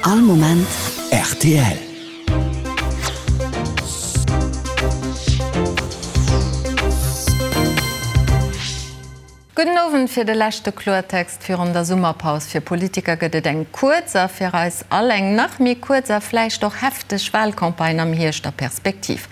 All Moment rtl. Gudden Owend. Fir de leschte Kloertext virun der Summerpaus fir Politiker gëtt et eng kuerz a fir eis all eng nach méi kuerz a vläicht och hefteg Wahlcampagne am Hierscht a Perspektiv.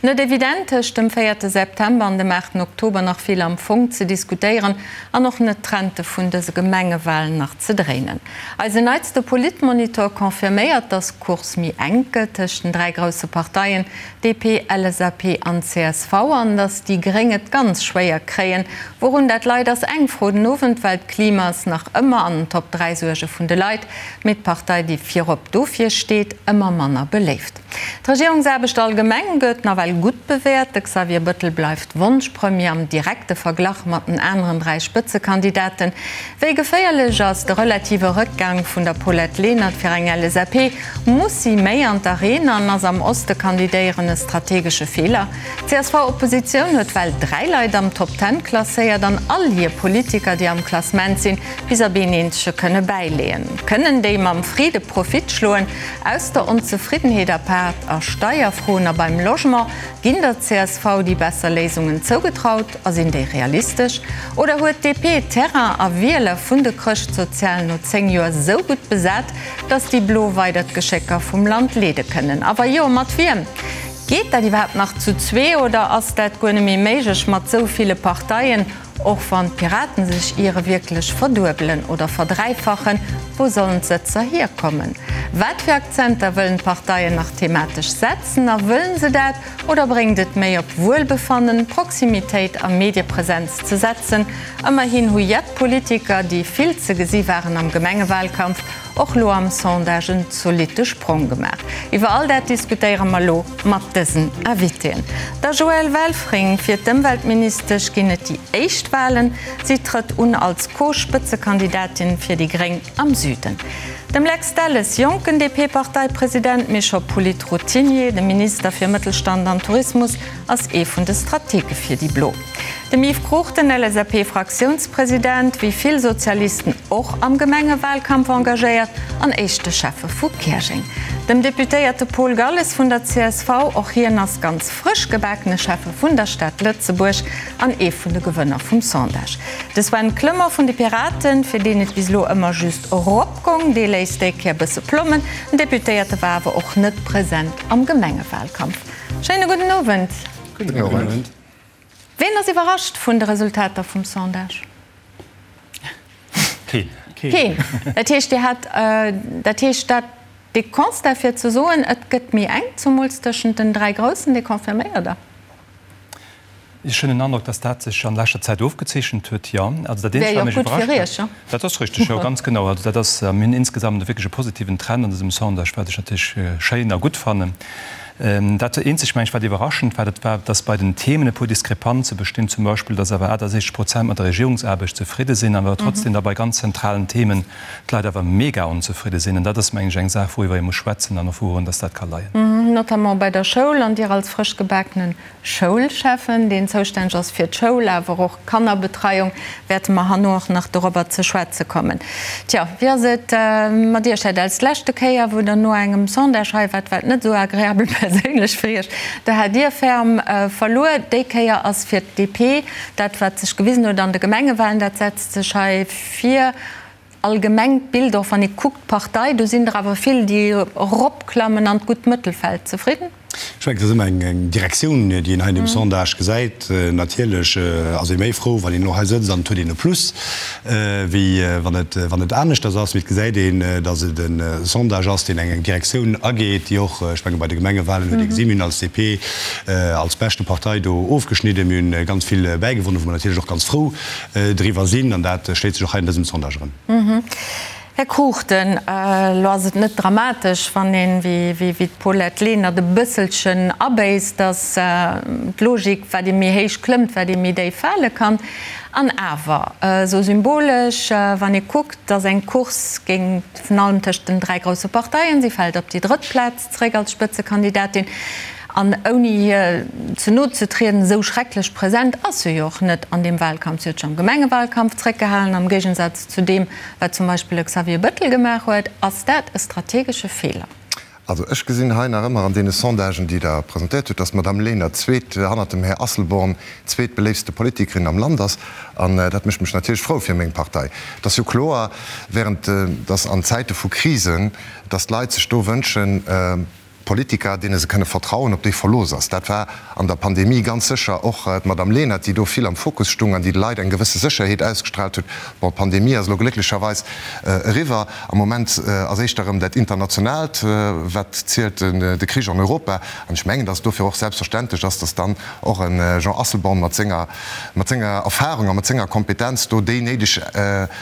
Net evident tëscht dem véierte September an dem aachten Oktober nach vill am Fong ze diskutéieren an och net d'Trente vun dëse Gemengewahlen nach ze dréinen. Eisen neitste Politmonitor confirméiert, dass d'Course méi enk gëtt tëscht den 3 grousse Parteien DP, LSAP an csv an dass déi Gréng et ganz schwéier kréien. Wourun dat leit ass eng Fro den Owend, well d'Klima ass nach ëmmer an den Top 3 Suerge vun de Leit, mee d'Partei déi virop dofir steet, ëmmer manner beléift. D'Regierungsaarbecht allgemeng gëtt nawell gutt bewäert. De Xavier Bëttel bleift Wonschpremier am direkte Verglach mat den aneren 3 Spëtzekandidaten. Wéi geféierlech ass de relative Rëckgang vun der Paulette Lenert fir eng LSAP? Muss si méi an d'Arena an ass am Oste kandidéieren e strategesche Feeler? D'CSV-Oppositioun huet well 3 Leit am Top Ten klasséiert an all hir Politiker, déi am Klassement sinn, bis op een eenzege kënne bäileeën. Kënnen déi mam Friede Profit schloen? Aus der Onzefriddenheet apaart a Steierfroen a beim Logement, ginn der csv déi besser Léisungen zougetraut a sinn déi realistesch? Oder huet d'DP Terrain a Wieler vun de Chrëschtsozialen no 10 Joer sou gutt besat, datt déi Blo weider d'Geschécker vum Land leede kënnen? A wa jo, mat wiem? Geet dat iwwerhaapt nach zu zwee oder ass dat guer net méi méiglech mat sou ville Parteien? Och wann d'Piraten sech iere wierklech verduebelen oder verdräifachen, wou sollen d'Sëtzer hierkommen? Wat fir Akzenter wëllen d'Parteien nach thematesch setzen? A wëllen se dat oder bréngt et méi op Wuelbefannen, Proximitéit a Mediepresenz ze setzen? Ëmmerhin hu jett Politiker, déi vill ze gesi waren am Gemengewahlkampf, Och lo am Sondage en zolitte Sprong gemaach. Iwwer all dat diskutéiere mer lo mat dësen Invitéen. Der Joëlle Welfring, Fir d'Ëmweltministesch ginn et déi éischt Walen. Si trëtt un als Co-Spëtzekandidatin fir déi Gréng am Süden. Dem Lex Delles, jonken DP-Parteipresident, mee scho Polit-Routinier, de Minister fir Mëttelstand an Tourismus, ass ee vun de Stratege fir déi Blo. Dem Yves Cruchten, LSAP-Fraktiounspresident, wéi vill Sozialisten och am Gemengewahlkampf engagéiert an éischte Schäffe vu Käerjeng. Dem Deputéierte Paul Galles vun der csv, och hien ass ganz frësch gebakene Schäffe vun der Stad Lëtzebuerg an ee vun de Gewënner vum Sondage. De Sven Clement vun de Piraten, fir deen et bis elo ëmmer just erop gong, dee léisst déi Kéier bësse plommen. Den Deputéierte war awer och net present am Gemengewahlkampf. Schéine gudden Owend. Gudden Owend. Ween ass iwwerrascht vun de Resultater vum Sondage? Keen. Keen. Dat heescht, Dir hat, dat heescht dat, dee Constat fir ze soen, et gëtt méi enk, zumools tëschent den 3 Groussen, dee confirméiert Der? Ech hunn den Androck, dass dat sech an leschter Zäit ofgezeechent huet, jo. Also dat Eenzegt, wat mech iwwerrascht huet, dat ass richteg, jo, ganz genau. Also dat ass, mir hunn insgesamt wierklech e positiven Trend an dësem Sondage, wat ech natierlech schéin a gutt fannen. Dat eenzegt, meng ech, wat iwwerraschend war, dat war, dass bei den Themen e puer Diskrepanze bestinn, zum Beispill, dass awer 68 Prozent mat der Regierungsaarbecht zefridde sinn, awer trotzdem da bei ganz zentralen Themen d'Leit awer mega onzefridde sinn. An dat ass, meng ech, eng Saach, wouriwwer ee muss schwätzen an och wourun dass dat ka leien. Notamment bei der Schoul. An Dir als frëschgebakene Schoulschäffen, deen zoustänneg ass fir d'Schoul, awer och d'Kannerbetreiung, wäerte mer herno och nach dorobber ze schwätze kommen. Tja, wéi ass et mat Iech, Här Delles? D'leschte Kéier, wou Der no engem Sondage hei waart, war et net esou agreabel perséinlech fir Iech. Do hat Dir ferm verluer. Déi Kéier ass fir d'DP dat, wat sech gewisen huet an de Gemengewahlen, dat setzt sech hei vir. Allgemengt Bild, och wann ee kuckt d'Partei, do sinn der awer vill, déi eropklammen an d'gutt Mëttelfeld. Zefridden? Ech mengen, et ass ëmmer eng Direktioun, déi een hei an deem Sondage gesäit. Natierlech ass ee méi frou, wann een elo hei sëtzt an et huet een e Plus, wéi wann et, wann et aneschters ass. Mee et gesäit een, datt et e Sondage ass, deen eng Direktioun ageet, déi och, ech menge bei de Gemengewahlen huet ee gesinn, mir hunn als DP als beschte Partei do ofgeschnidden, mir hunn ganz vill bäigewonnen, wou mer natierlech och ganz frou driwwer sinn, an dat schléit sech och hei an dësem Sondage erëm. Här Cruchten, elo ass et net dramatesch, wann een, wéi d'Paulette Lenert, e bësselchen abéisst, datt d'Logik, wat ee méi héich klëmmt, wat ee méi déif fale kann. An awer, esou symbolesch, wann ee kuckt, datt eng Course géing virun allem tëscht den 3 grousse Parteien, si fält op déi drëtt Plaz zeréck als Spëtzekandidatin. An ouni hir ze no ze trieden, esou schrecklech present ass se jo och net an deem Wahlkampf. Si huet sech am Gemengewalkampf zréckgehalen, am Géigensaz zu deem, wat zum Beispill e Xavier Bëttel gemaach huet. Ass dat e strategesche Feeler? Also ech gesinn hei nach ëmmer an deene Sondagen, déi Der presentéiert hutt, dass d'Madame Lenert zweet, hannert dem Här Asselborn, zweetbeléiftste Politikerin am Land ass. An dat mécht mech natierlech frou fir meng Partei. Et ass jo kloer, während dass an Zäite vu Krisen, dass d'Leit sech do wënschen, Politiker, deene se kënne vertrauen, op déi Verlooss ass. Dat war an der Pandemie ganz sécher och d'Madame Lenert, déi do vill am Fokus stung an déi de Leit eng gewësse Sécherheet ausgestrahlt huet. Bon, d'Pandemie ass elo glécklecherweis eriwwer. Am Moment ass éischter erëm dat Internationaalt, wat zielt, de Krich an Europa. An ech mengen, datt et dofir och selbstverständlech ass, datt dann och e Jean Asselborn mat senger, mat senger Erfahrung a mat senger Kompetenz do déi néideg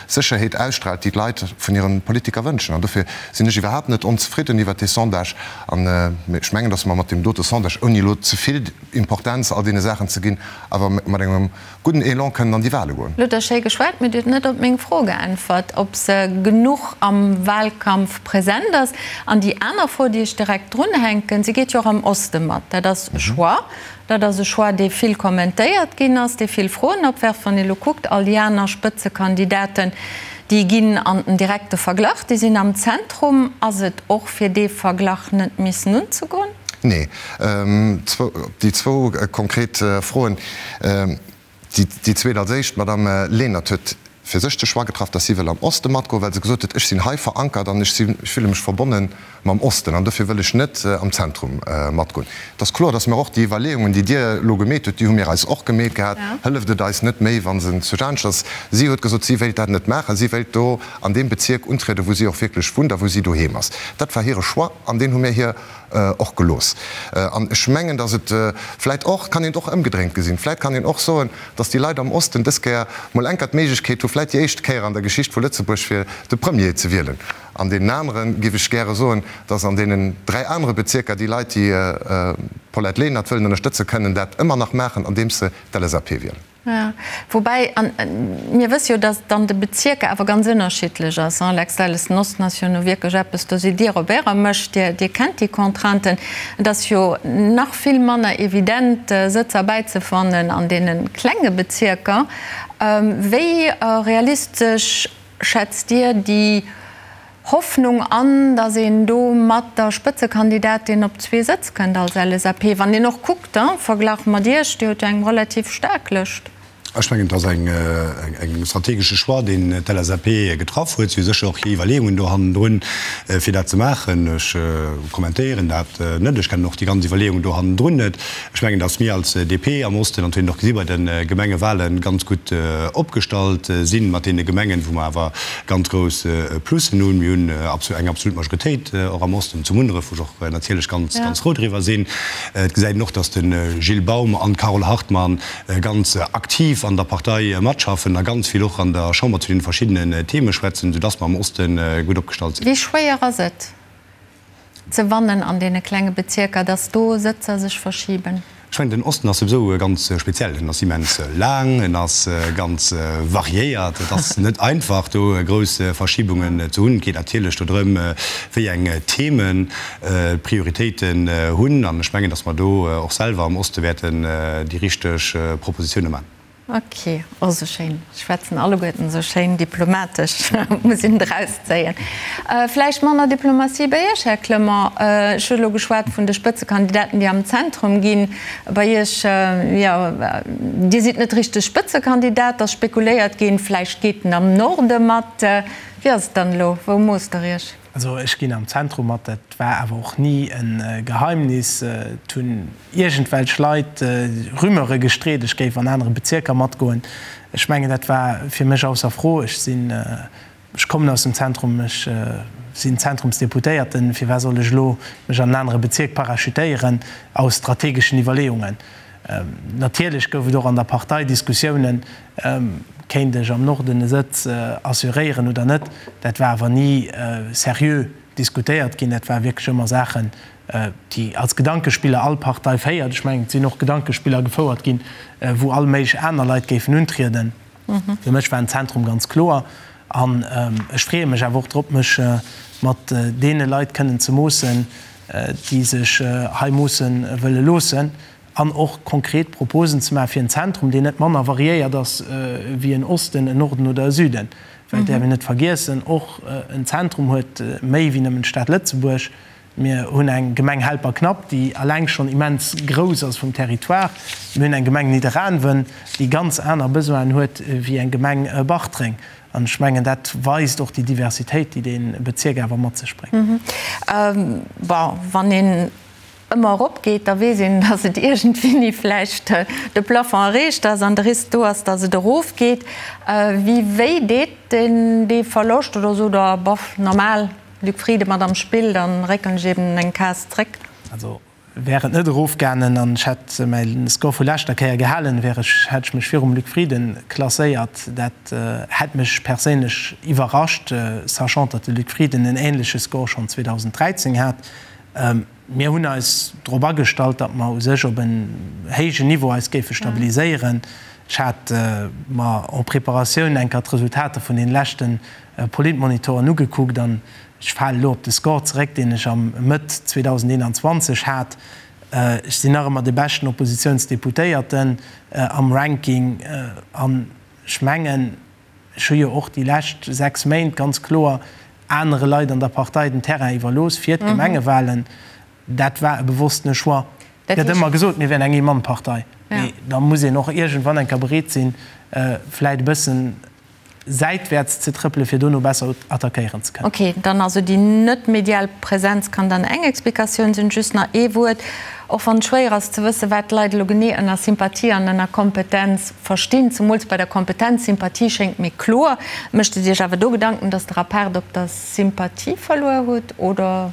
Sécherheet ausstrahlt, déi d'Leit vun hire Politiker wënschen. An dofir sinn ech iwwerhaapt net onzefridden iwwert dee Sondage. An ech mengen, datt mer mat deem dote Sondage, ouni elo ze vill Importenz all deene Saachen ze ginn, awer mat engem gudden Elan kënnen an déi Wahle goen. Lo hutt Der schéi geschwat, mee Dir hutt net op meng Fro geäntwert, ob se genuch am Wahlkampf present ass. An déi aner Fro, déi ech direkt drunhänken, Si geet jo och am Oste mat. Dat ass e Choix. Dat ass e Choix, dee vill kommentéiert ginn ass, dee vill Froen opwerft. Wann ee lo kuckt, all déi aner Spëtzekandidaten, déi ginn an den direkte Verglach, déi sinn am Zentrum. Ass et och fir dee Verglach net missen unzegoen? Nee. Déi zwou konkret Froen, déi zweet als éischt. D'Madame Lenert huet fir sech de Choix getraff, dass si wëll am Oste matgoen, well se gesot huet, ech sinn hei verankert an ech sinn, ech fille mech verbonne mam Osten an dofir wëll ech net am Zentrum matgoen. Et ass kloer, dass mir och déi Iwwerleeungen, déi Dir elo gemeet hutt, déi hu mir eis och gemeet gehat, hëlleft et eis net méi, wa se zu Jaanscht ass. Si huet gesot, si wéilt dat net maachen, si wéilt do an deem Bezierk untrieden, wou si och wierklech wunnt a wou si doheem ass. Dat war hire Choix an deen hu mir hir och gelooss. An ech mengen, dass et vläicht och, kann een et och ëmgedréint gesinn, vläicht kann een och soen, dass déi Leit am Osten dës Kéier mol enker d'Méiglechkeet hu vläit déi éischt Kéier an der Geschicht vu Lëtzebuerg fir de Premier ze wielen. An deenen anere géif ech gäre soen, dass an deenen 3 anere Bezierker déi Leit, déi d'Paulette Lenert wëllen ënnerstëtzen, kënnen dat ëmmer nach maachen, andeems se d'LSAP wielen. Jo, woubäi, an mir wësse jo, datt et an de Bezierker awer ganz ënnerschiddlech ass, hein, Lex Delles, den Osten ass jo nu wierklech eppes, do sidd Dir op Ärer Mëscht, Dir, Dir kennt déi Contrainten. Et ass jo nach vill manner evident, Sëtzer bäizefannen an deene klenge Bezierker. Wéi realistesch schätzt Dir déi Hoffnung an, datt een do mat der Spëtzekandidatin op zwee Sëtz kënnt als LSAP, wann een och kuckt, am Verglach mat Iech, Dir hutt jo eng relativ staark Lëscht. Ech mengen, et ass eng strategesche Choix, deen d'LSAP getraff huet. Si hu sécher och hir Iwwerleeungen do hannendrun, fir dat ze maachen. Ech kommentéieren dat net. Ech kennen och déi ganz Iwwerleeungen do hannendrun net. Ech mengen, datt mir als DP am Osten, an dat huet een och gesi bei de Gemengewahlen, ganz gutt opgestallt sinn mat deene Gemengen, wou mer awer ganz grouss Plussen hunn. Mir hunn eng absolut Majoritéit och am Osten, zu Munneref, wou ech och natierlech ganz, ganz frou driwwer sinn. Et gesäit een och, datt de Gilles Baum an d'Carole Hartmann ganz aktiv an der Partei matschaffen a ganz vill och an der Chamber zu deene verschiddenen Theme schwätzen, soudatt mer am Oste gutt opgestallt sinn. Wéi schwéier ass et, ze wannen an deene klenge Bezierker, dass do Sëtzer sech verschiben? Ech mengen, den Osten ass souwisou ganz speziell. En ass immens laang, en ass ganz variéiert. Et ass net einfach, do grouss Verschibungen ze hunn. Et geet natierlech do drëm, wéi eng Themen d'Prioritéiten hunn. An ech mengen, dass mer do och selwer am Oste wäerten déi richteg Propositioune maachen. Ok, oh sou schéin, schwätzen alleguerten sou schéin diplomatesch, muss een drauszéien. Vläicht manner Diplomatie bei Iech, Här Clement. Ech hu elo geschwat vun de Spëtzekandidaten, déi am Zentrum ginn. Bei Iech, jo, Dir sidd net richteg Spëtzekandidat, et ass spekuléiert ginn, vläicht geet en am Norde mat. Wéi ass et dann elo, wou moosst Der Iech? Also ech ginn am Zentrum mat, dat war awer och ni e Geheimnis. Et hunn iergendwelch Leit Rumeure gestreet, ech géif an anere Bezierker matgoen. Ech mengen, dat war fir mech ausser Fro. Ech sinn, ech kommen aus dem Zentrum, ech sinn Zentrumsdeputéierten. Firwat soll ech elo mech an en anere Bezierk parachutéieren aus strategeschen Iwwerleeungen? Natierlech gouf et och an der Partei Diskussiounen, Kéint ech am Norden e Sëtz assuréieren oder net? Dat war awer ni seriö diskutéiert ginn. Dat ware wierklech ëmmer Saachen, déi als Gedankespiller all Partei féiert. Ech mengen, et sinn och Gedankespiller gefouert ginn, wou all méiglech aner Leit géifen untrieden. Fir mech war den Zentrum ganz kloer. An ech freeë mech awer och drop, mech mat deene Leit kënnen ze moossen. déi sech hei moosse wëlle loossen an och konkret Proposen ze maache fir en Zentrum, deen net manner variéiert ass wéi en Osten, en Norden oder e Süden. Well et däerf een net vergiessen, och en Zentrum huet méi wéi nëmmen d'Stad Lëtzebuerg. Mir hunn eng Gemeng Helperknapp, déi alleng schonn immens grouss ass vum Territoire. Mir hunn eng Gemeng Nidderaanwen, déi ganz aner Besoinen huet wéi eng Gemeng Bartreng. An ech mengen, dat weist och déi Diversitéit, déi dee Bezierk awer mat sech bréngt. Bon, wann een ëmmer eropgeet, da weess een, datt et iergendwéini vläicht de Plafond erreecht ass an de Risk do ass, datt et erofgeet. Wéi wéi deet deen dee Verloscht oder sot Der, boff, normal, Luc Frieden mat am Spill, da réckelen ech eben eng Case zréck? Also wär et net erofgaangen an ech hätt mäi Score vu leschter Kéier gehalen, wär ech, hätt ech mech virum Luc Frieden klasséiert. Dat hätt mech perséinlech iwwerrascht, sachant datt de Luc Frieden en änleche Score schonn 2013 hat. Mir hunn eis drop agestallt, datt mer u sech op en héijen Niveau eis géife stabiliséieren. Ech hat mer en préparatioun eng Kéier d'Resultater vun deene leschte Politmonitoren ugekuckt an ech fale elo op de Score zeréck, deen ech am Mëtt 2021 hat. Ech sinn nach ëmmer de beschten Oppositiounsdeputéierten am Ranking an ech mengen, Ech hu jo och déi lescht 6 Méint ganz kloer anere Leit an der Partei den Terrain iwwerlooss fir d'Gemengewahlen. Dat war e bewosstene Choix. Et gëtt ëmmer gesot, mir wären eng Ee-Mann-Partei. Mee da muss een och iergendwann eng Kéier bereet sinn, vläit e bëssen säitwäerts ze trëppelen, fir dono besser attackéieren ze kënnen. Ok, dann also déi net medial Präsenz kann dann eng Explikatioun sinn. Just nach ee Wuert, och wann et schwéier ass ze wëssen, wat d'Leit elo genee ënner Sympathie an ënner Kompetenz verstinn, zemools bei der Kompetenz. Sympathie schéngt mir kloer. Mécht et Iech awer do Gedanken, datt Der apaart op der Sympathie verluer hutt, oder?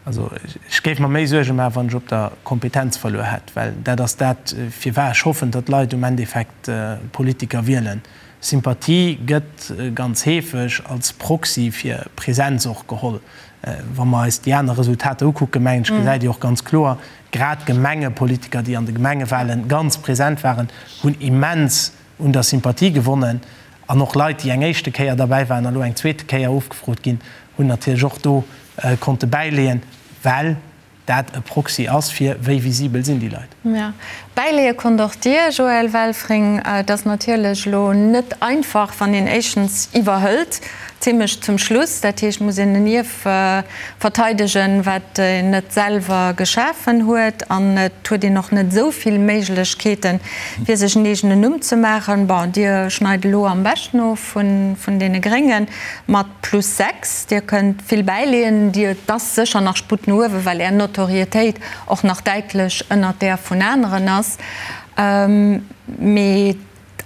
Also ech géif mer méi Suerge maachen, wann ech op der Kompetenz verluer hätt, well dat ass dat, firwat ech hoffen, datt d'Leit um Endeffekt Politiker wielen. Sympathie gëtt ganz heefeg als Proxy fir Präsenz och geholl. Wa mer eis déi aner Resultater ukucken, mengen ech, gesäit ee och ganz kloer, grad Gemengepolitiker, déi an de Gemengewahlen ganz present waren, hunn immens un der Sympathie gewonnen. An och Leit, déi eng éischte Kéier derbäi waren a lo eng zweete Kéier ofgefrot ginn, hunn natierlech och do konnte bäileeën, well dat e Proxy ass fir wéi visibel sinn déi Leit. Jo, bäileeë konnt och Dir, Joël Welfring. Et ass natierlech elo net einfach, wann een éischtens iwwerhëlt, zimlech zum Schluss, dat heescht, muss een en Ierf verteidegen, wat een net selwer geschafen huet, an et huet een och net esou vill Méiglechkeeten, fir sech en eegenen Numm ze maachen. Bon, Dir schneit elo am beschten of vun deene Gréngen mat plus 6. Dir kënnt vill bäileeën. Dir, et ass sécher nach Sputt no uewen, well Är Notorietéit och nach däitlech ënnert där vun aneren ass. Mee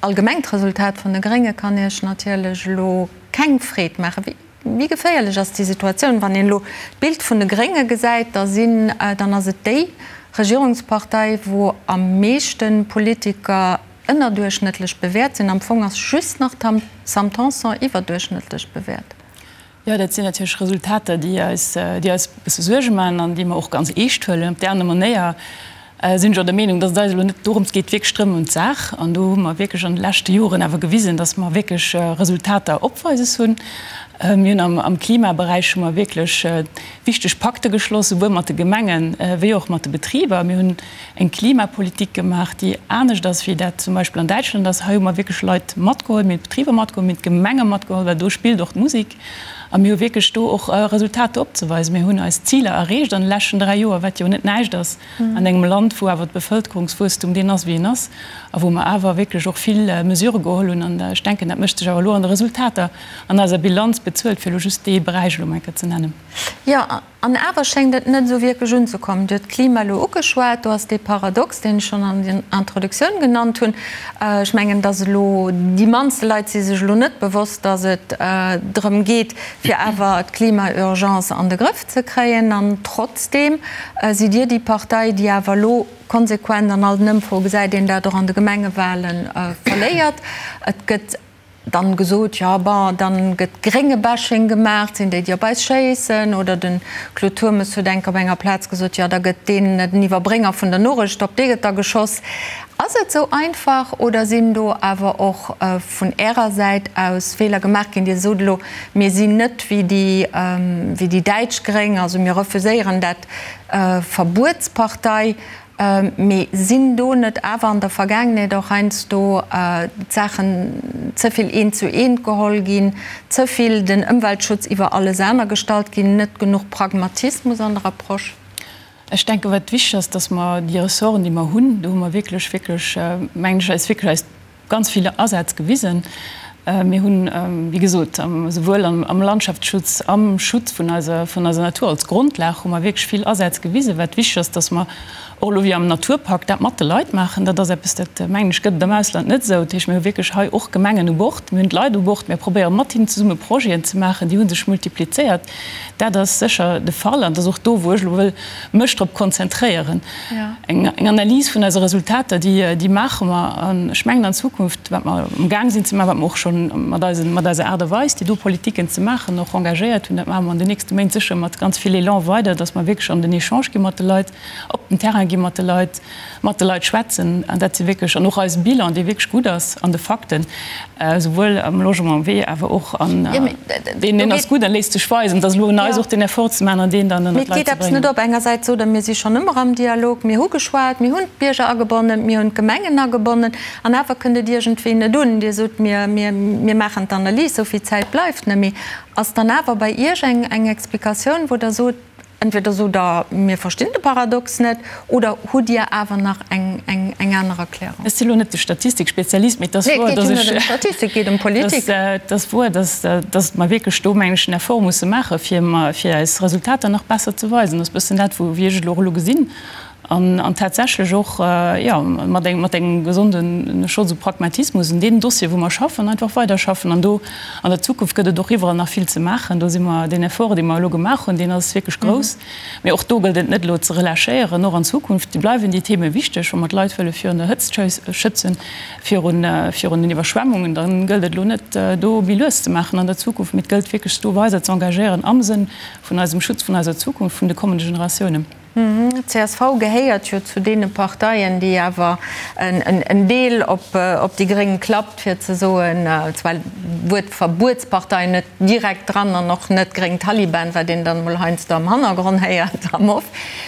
d'allgemengt Resultat vun de Grénge kann Iech natierlech elo keng Freed maachen. Wéi geféierlech ass déi Situatioun? Wann een elo d'Bild vun de Grénge gesäit, da sinn, dann ass et déi Regierungspartei, wou am meeschte Politiker ënnerduerchschnëttlech bewäert sinn. Am Fong ass just nach d'Sam Tanson iwwerduerchschnëttlech bewäert. Jo, dat sinn natierlech Resultater, déi eis, déi eis e bësse Suerge maachen an déi mer och ganz eescht huelen. Op där aner Manéier sinn ech och der Meenung, dass et eis elo net dorëms geet, wierklech drëm ëm d'Saach. An do hu mer wierklech an de leschte Joren awer gewisen, dass mer wierklech Resultater opweises hunn. Mir hunn am, am Klimaberäich hu mer wierklech wichteg Pakte geschloss, souwuel mat de Gemengen wéi och mat de Betriber. Mir hunn eng Klimapolitik gemaach, déi anescht ass, wéi dat zum Beispill an Däitschland ass. Hei hu mer wierklech Leit matgeholl, mir hunn d'Betriber matgeholl, mir hunn d'Gemenge matgeholl, well do spillt och d'Musek. A mir hu wierklech do och Resultater opzeweisen. Mir hunn eis Ziler erreecht an de leschten 3 Joer, wat jo net näischt ass an engem Land, wou awer d'Bevëlkerungswuesstum deen ass, wéi en ass, a wou mer awer wierklech och vill Mesurë geholl hunn. An ech denken, dat mécht sech awer elo an de Resultater an eiser Bilanz bezuelt, fir elo just dee Beräich elo emol eng Kéier ze nennen. Jo, An awer schéngt et net esou wierklech unzekommen. Dir hutt d'Klima elo ugeschwat. Do ass dee Paradox, deen ech schonn an der Introduktioun genannt hunn. Ech mengen, dass elo déi mannste Leit si sech elo net bewosst, dass et drëm geet, fir awer d'Klima-Urgence an de Grëff ze kréien. An trotzdeem sidd Dir déi Partei, déi awer elo konsequent an all den Ëmfroe gesäit een dat och an de Gemengewahlen, verléiert. Et gëtt Dann gesot, jo bon, dann gëtt Grénge-Bashing gemaach, et sinn déi, déi op eis schéissen. Oder de Claude Turmes huet enk op enger Plaz gesot, jo da gëtt deen, den Iwwerbrénger vun der Norecht, op dee gëtt da geschoss. Ass et esou einfach oder sinn do awer och vun Ärer Säit aus Feeler gemaach ginn? Dir sot elo, mir sinn net wéi déi, wéi déi däitsch Gréng, also mir refuséieren dat Verbuetspartei. Mee sinn do net awer an der Vergaangenheet och heiansdo d'Saachen ze vill eent zu eent geholl ginn, ze vill den Ëmweltschutz iwwer alles aner gestallt ginn, net genuch Pragmatismus an der Approche? Ech denken, wat wichteg ass, dass mer déi Ressorten, déi mer hunn, do hu mer wierklech, wierklech, mengen ech, eis wierklech eis ganz vill Asaz gewisen. Mir hunn, wéi gesot, esouwuel am Landschaftsschutz, am Schutz vun eiser, vun eiser Natur als Grondlag hu mer wierklech vill Asätz gewisen. Wat wichteg ass, dass mer och elo wéi am Naturpakt dat mat de Leit maachen. Dat ass eppes, dat, mengen ech, gëtt et am Ausland net esou. Dat heescht, mir hu wierklech hei och Gemengen u Bord, mir hunn d'Leit u Bord, mir probéiere mat hinnen zesumme Projeten ze maachen. Déi hu sech multiplizéiert. Dat ass sécher de Fall an dat ass och do, wou ech elo wëll mech drop konzentréieren. Eng Analys vun eise Resultater, déi maache mer. An ech mengen an Zukunft, wat mer amgaang sinn ze maachen, wat mer och scho mat eisen, mat eiser Aart a Weis, déi do Politiken ze maachen, och engagéiert hunn, dat maache mer an den nächste Méint sécher mat ganz vill Elan weider, dass mer wierklech an den Echange gi mat de Leit, op den Terrain gi mat de Leit, mat de Leit schwätzen. An dat si wierklech, an och eise Bilan, dee wierklech gutt ass an de Fakten, esouwuel am Logement wéi awer och an deen, deen ass gutt a léisst sech weisen. Et ass elo un eis och deen Effort ze maachen an deen dann ënnert d'Leit ze bréngen. Mee et geet eppes net op. Engersäits sot Der, mir si schonn ëmmer am Dialog, mir hu geschwat, mir hunn d'Bierger agebonnen, mir hunn d'Gemengen agebonnen, an awer kënnt et iergendwéi net un. Dir sot, mir, mir, mir maachen d'Analys, esou vill Zäit bleift net méi. Ass dann awer bei Iech eng, eng Explikatioun, wou Der sot, Entweder sot Der, mir verstinn de Paradox net, oder hutt Dir awer nach eng aner Erklärung? Ech si lo net de Statistikspezialist, mee et ass wouer, dass ech, Nee, et geet jo net ëm Statistik, et geet ëm Politik. Et ass wouer, dass, dass mer wierklech do, mengen ech, en Effort musse maachen, fir, fir eis Resultater nach besser ze weisen. Dat ass e bëssen dat, wou, wéi ech et elo och elo gesinn. An tatsächlech och, jo, mat engem, mat engem gesonden Schotz u Pragmatismus un deenen Dossieren, wou mer schaffen, einfach weiderschaffen. An do an der Zukunft gëtt et och iwwerall nach vill ze maachen. Do si mer, deen Effort, dee mer elo gemaach hunn, deen ass wierklech grouss. Mee och do gëllt et net elo ze relâchéieren. Och an Zukunft bleiwen déi Theme wichteg. Wa mer d'Leit wëlle virun der Hëtzt schützen, virun, virun den Iwwerschwemmungen, da gëllt et elo net, do méi lues ze maachen an der Zukunft. Mee et gëllt wierklech, do weider ze engagéieren am Sënn vun eisem Schutz vun eiser Zukunft, vun de kommende Generatiounen. D'CSV gehéiert jo zu deene Parteien, déi awer en Deel op déi Gréng klappt, fir ze soen, zwar d'Wuert Verbuetspartei net direkt dran an och net gréng Taliban, wat een dann emol heiansdo am Hannergronn héiert am Off,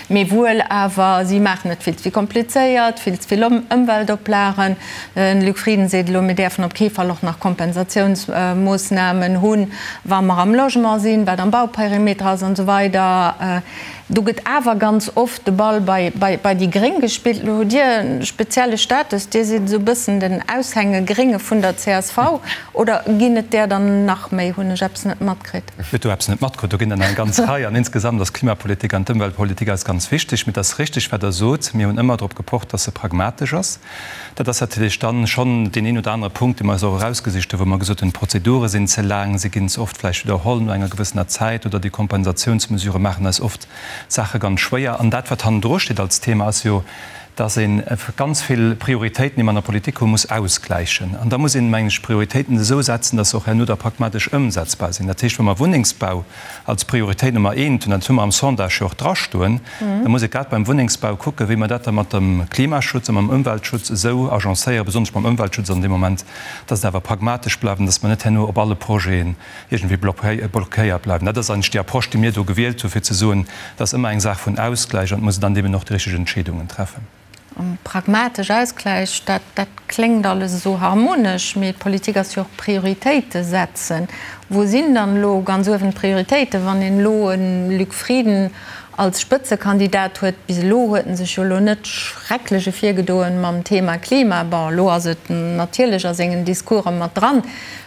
mee wuel awer, si maachen et vill ze vill komplizéiert, vill ze vill Ëmweltoplagen. De Luc Frieden seet elo, mir däerfen op kee Fall och nach Kompensatiounsmoossnamen hunn, wa mer am Logement sinn, wat am Bauperimeter ass an esou weider. Do gëtt awer ganz oft de Ball bei déi Gréng gespillt. Elo hutt Dir e spezielle Status, Dir sidd esou e bëssen den Aushänge-Grénge vun der csv. Oder ginn et där dann nach méi? Hunn ech eppes net matkritt? Hutt do eppes net matkritt. Do ginn der nach eng ganz Rei. An insgesamt ass d'Klimapolitik an d'Ëmweltpolitik eis ganz wichteg. Mee et ass richtig, wat Der sot, Mir hunn ëmmer drop gepocht, dass se pragmatesch ass. Dat ass natierlech dann schonn deen een oder anere Punkt, dee mer eis och erausgesicht hunn, wou mer gesot hunn, d'Prozedure sinn ze laang, se ginn ze oft vläicht widderholl no enger gewëssener Zäit oder déi Kompensationsmesurë maachen eis oft d'Saache ganz schwéier. An dat, wat hannendru steet als Thema, ass jo, dass ee ganz vill Prioritéiten, déi mer an der Politik hunn, muss ausgläichen. An da muss een, mengen ech, d'Prioritéiten esou setzen, dass se och herno da pragmatesch ëmsetzbar sinn. Dat heescht, wa mer Wunnengsbau als Prioritéit Nummer eent hunn, dat hu mer am Sondage jo och drastoen, da muss ee grad beim Wunnengsbau kucken, wéi mer dat da mat dem Klimaschutz a mam Ëmweltschutz esou agencéieren, besonnesch mam Ëmweltschutz an deem Moment, dass et awer pragmatesch bleift an dass mer net herno op alle Projeten iergendwéi blockéiert bleiwen. Dat ass eigentlech déi Approche, déi mir do gewielt hu fir ze soen, et ass ëmmer eng Saach vun Ausgläich an et muss een dann deemno och déi richteg Entscheedungen treffen. Pragmatesch Ausgläich, dat dat kléngt alles esou harmonesch, mee Politik ass jo och Prioritéite setzen. Wou sinn dann elo ganz uewen d'Prioritéiten, wann een elo e Luc Frieden als Spëtzekandidat huet? Bis elo huet en sech jo elo net schrecklech ervirgedoen mam Thema Klima. Bon, elo ass et natierlech a sengen Discourse mat dran,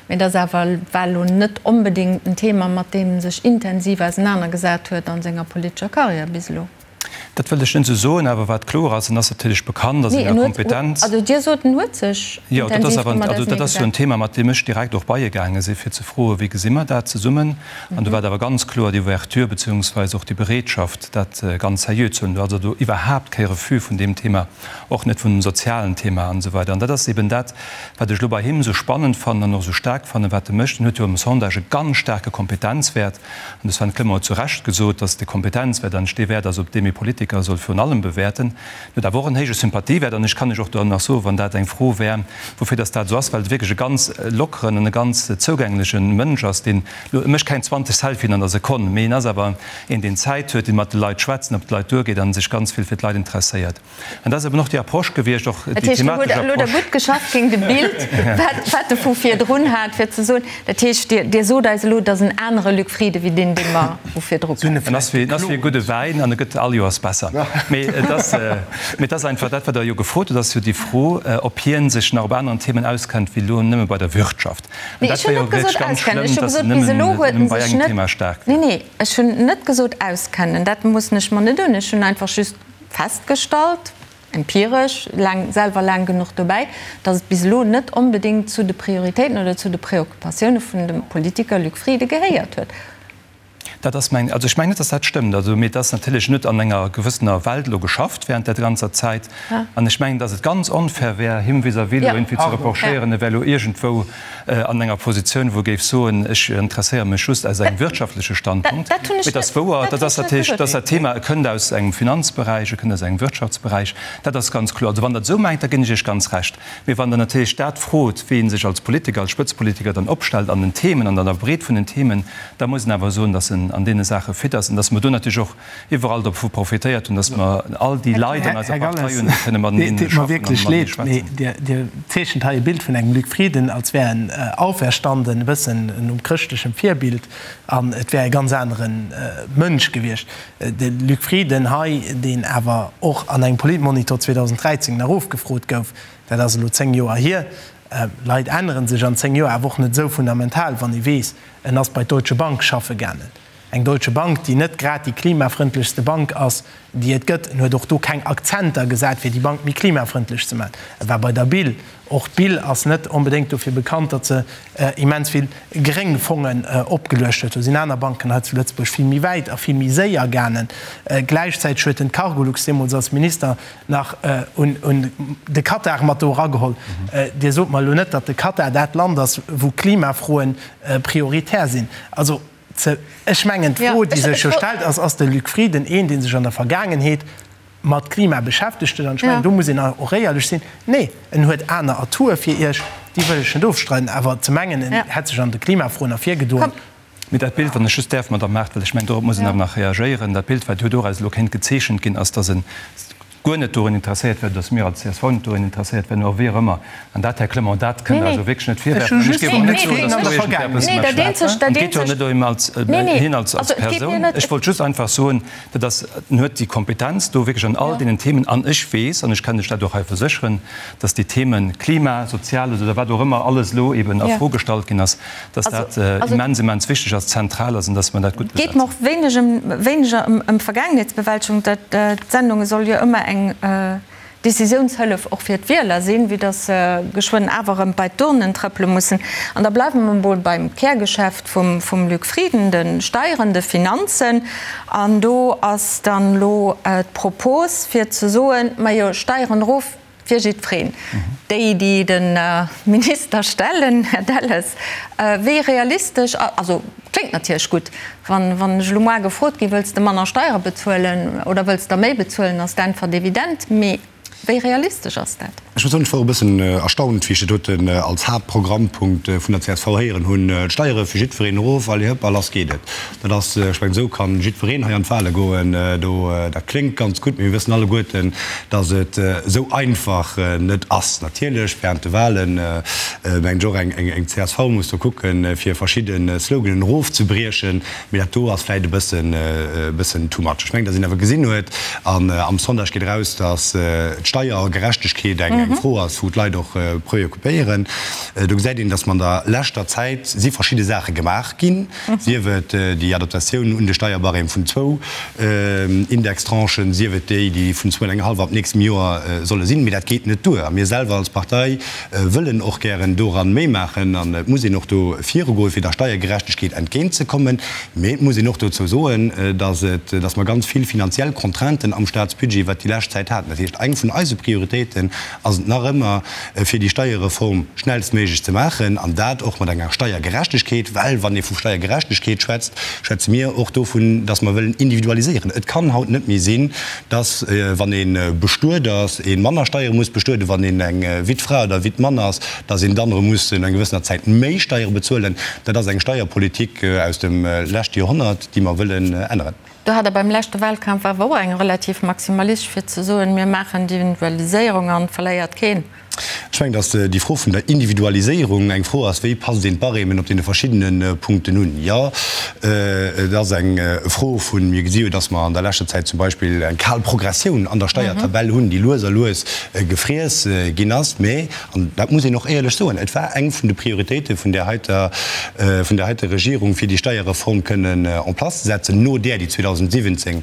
mee et ass awer war elo net onbedéngt en Thema, mat deem en sech intensiv ausenanergesat huet a senger politescher Karriär bis elo. Dat wëllt ech net esou soen, awer wat kloer ass, en ass natierlech bekannt a senger Kompetenz. Also Dir sot, en huet sech Jo, dat ass awer, also dat ass jo en Thema, mat deem ech direkt och bei e gaange si fir ze froen, wéi gesi mer dat zesummen? An do war et awer ganz kloer déi Ouverture beziehungsweise och déi Bereetschaft, dat ganz seriö ze huelen. Do ass also iwwerhaapt kee Refus vun deem Thema, och net vun dem sozialen Thema an esou weider. An dat ass eben dat, wat ech elo bei him esou spannend fannen an och esou staark fannen, wat e mécht. En huet jo am Sondage e ganz staarke Kompetenzwäert. An de Sven Clement huet zu Recht gesot, dass de Kompetenzwäert eigentlech dee Wäert ass, op deem ee Politiker. Politiker soll virun allem bewäerten. En huet awer och en héije Sympathiewäert an ech kann lech och do nach soen, wann dat eng Fro wär, woufir dass dat esou ass, well e wierklech e ganz lockeren an e ganz zougängleche Mënsch ass, deen elo, e mécht keng 20 Selfien an der Sekonn, mee en ass awer een, deen Zäit huet, dee mat de Leit schwätzt an op d'Leit duergeet a sech ganz vill fir d'Leit interesséiert. An dat ass eben och déi Approche gewiescht, och déi thematesch Approche. Dat heescht, Dir hutt elo da gutt geschafft géint e Bild, wat wat e vu virdrun hat, fir ze soen, dat heescht, Dir, Dir sot eis elo, et ass en anere Luc Frieden wéi deen, dee mer vu virdru kennen. En ass wéi, en ass wéi e gudde Wäin an e gëtt all Joers besser. Mee et ass, mee et ass einfach dat, wat Der jo gefrot hutt, ass jo déi Fro, ob hien sech nach op aneren Themen auskennt wéi elo nëmme bei der Wirtschaft. An dat wär jo wierklech ganz schlëmm, datt en nëmmen bei engem Thema staark wär. Nee, nee, ech hunn net gesot auskennen, dat moossen ech mer net un. Ech hunn einfach just festgestallt, empiresch, laang, selwer laang genuch dobäi, datt et bis elo net onbedéngt zu de Prioritéiten oder zu de Preoccupatioune vun dem Politiker Luc Frieden gehéiert huet. Dat ass meng, also ech mengen net, datt dat stëmmt. Also, mee et ass natierlech net an enger gewëssener Welt elo geschafft während där ganzer Zäit. An ech mengen, datt et ganz onfair wär, him vis-à-vis elo iergendwéi ze reprochéieren, e wär elo iergendwou an enger Positioun, wou e géif soen, ech interesséiere mech just aus engem wirtschaftleche Standpunkt. Mee et ass wouer, dat ass natierlech, dat ass dat Thema, e kënnt aus engem Finanzberäich, e kënnt aus engem Wirtschaftsberäich, dat ass ganz kloer. Also wann Der et esou mengt, da ginn ech Iech ganz Recht. Mee wann Der natierlech dat frot, wéi ee sech als Politiker, als Spëtzepolitiker dann opstellt an den Themen, an der Breet vun den Themen, da muss een awer soen, datt en an deene Saache fit ass an datt mer do natierlech och iwwerall dovu profitéiert hunn, datt mer all déi Leit an eiser Här Partei Galles, hunn, déi kënne mateneen et deet mer schaffen an wierklech matenee leed, mee schwätzen. Dir, Dir zeechent hei e Bild vun engem Luc Frieden, als wär en auferstanden, e bëssen nom chrëschtlechem Virbild, an et wär e ganz anere Mënsch gewiescht. De Luc Frieden hei, deen awer och an engem Politmonitor 2013 nach ofgefrot gouf, dat ass elo 10 Joer hier, Leit ännere sech an 10 Joer awer och net esou fundamental, wann ee weess, en ass bei d'Deutsche Bank schaffe gaangen. Eng Deutsche Bank, déi net grad déi klimafrëndlechste Bank ass, déi et gëtt. En huet och do keng Akzenter gesat, fir déi Bank méi klimafrëndlech ze maachen. E war bei der BIL. Och d'BIL ass net onbedéngt dofir bekannt, datt se immens vill gréng Fongen opgeluecht huet. Do sinn aner Banken hei zu Lëtzebuerg vill méi wäit a vill méi séier gaangen. Gläichzäiteg huet en d'Cargolux deemools als Minister nach un de Katar mat do erageholl. Dir sot mer elo net, datt de Katar dat Land ass, wou Klimafroe prioritär sinn. Also, Ze, ech mengen, d'Fro, déi sech jo stellt, ass, Ass de Luc Frieden een, dee sech an der Vergaangenheet mat Klima beschäftegt huet? An ech mengen, do muss een och éierlech sinn, Nee, en huet aner Atoue fir Iech, déi wëll ech net ofstreiden. Awer ze mengen, en hätt sech an de Klimafroen ervirgedoen. Mee dat Bild, wann ech just däerf, Madamm Mart, well ech mengen, dorop muss een awer nach reagéieren, dat Bild, wat jo doraus elo kéint gezeechent ginn, ass, datt en guer net dorun interesséiert wär, dass mir als csv net dorun interesséiert wären, oder wéi och ëmmer. An dat, Här Clement, dat kënnt Der also wierklech net virwerfen. An ech géif och net soen, dass do iergendwer eppes mécht. An et geet jo net ëm als, hien als, als Persoun. Ech wollt just einfach soen, dat ass, en huet déi Kompetenz do wierklech an all deenen Themen. An ech weess, an ech kann lech dat och hei versécheren, dass déi Themen Klima, Soziales oder wat och ëmmer alles elo eben a Fro gestallt ginn ass, dass dat immens, immens wichteg ass, zentral ass an dass mer dat gutt besetzen. Et geet mer och wéineg ëm, wéineger ëm Vergaangenheetsbewältegung. D'Sendung soll jo ëmmer eng Décisiounshëllef och fir d'Wieler sinn, vue dass se geschwënn awer erëm bei d'Urnen trëppele mussen. An da bleiwe mer emol beim Kärgeschäft vum Luc Frieden, de Steieren, de Finanzen. An do ass dann elo d'Propos fir ze soen, majo Steieren erof, Fir jiddwereen. Déi, déi de Minister stellen, Här Delles, wéi realistesch, also kléngt natierlech gutt, wann ech elo moar gefrot ginn, wëlls de manner Steiere bezuelen oder wëlls der méi bezuelen, ass d'Äntwert evident. Mee wéi realistesch ass dat? Ech muss soen, ech wor e bëssen erstaunt, wéi ech dat doten als Haaptprogrammpunkt vun der csv héieren hunn, d'Steiere fir jiddwereen erof, allez hëpp a lass geet et. Dat ass, ech mengen, esou ka jiddwereen hei an d'Wahle goen. Do, dat kléngt ganz gutt, mee mir wëssen alleguerten, datt et esou einfach net ass. Natierlech, während de Wahlen, mengen ech och, eng csv muss do kucken, fir verschidde Sloganen erofzebriechen, mee dat do ass vläicht e bëssen, e bëssen too much. Ech mengen, datt een awer gesinn huet, an am Sondage geet eraus, datt d'Steiergerechtegkeet eng Fro ass, wou d'Leit och preoccupéieren. Do gesäit een, datt mer an der leschter Zäit si verschidde Saache gemaach ginn, sief et déi Adaptatioun un de Steierbarème vun zwou Indextranchen, sief et déi, déi vun zwou an eng hallef ab nächstem Joer solle sinn. Mee dat geet net duer. A mir selwer als Partei wëllen och gären doran méi maachen. An et muss een och do virugoen, fir der Steiergerechtegkeet entgéintzekommen. Mee et muss een och dozou soen, dass et, dass mer ganz vill finanziell Contrainten am Staatsbudget iwwert déi lescht Zäit haten. Dat heescht, eng vun eise Prioritéiten ass. ass et nach ëmmer, fir déi Steierreform schnellstméiglech ze maachen, an dat och mat enger Steiergerechtegkeet, well wann ee vu Steiergerechtegkeet schwätzt, schwätze mir och dovun, dass mer wëllen individualiséieren. Et kann haut net méi sinn, dass, wann ee bestuet ass, ee manner Steiere muss bestueden, wann een eng Wittfra oder Wittmann ass, dass een dann erëm muss no enger gewëssener Zäit méi Steiere bezuelen. Dat ass eng Steierpolitik aus dem leschte Joerhonnert, déi mer wëllen änneren. Do hat Der beim leschte Wahlkampf awer och eng relativ maximalistesch, fir ze soen, mir maachen d'Individualiséierung an et verléiert keen. Ech mengen, datt déi Fro vun der Individualiséierung eng Fro ass, wéi passt een d'Barèmen op deene verschiddene Punkten un. Jo, et ass eng Fro vun, mir gesi jo, datt mer an der leschter Zäit zum Beispill eng kal Progressioun an der Steiertabell hunn, déi lues a lues gefriess ginn ass. Mä, an dat muss een och éierlech soen, et war eng vun de Prioritéite vun där heiter, vun där heiter Regierung, fir déi Steierreform kënnen en place ze setzen, no där, déi 2017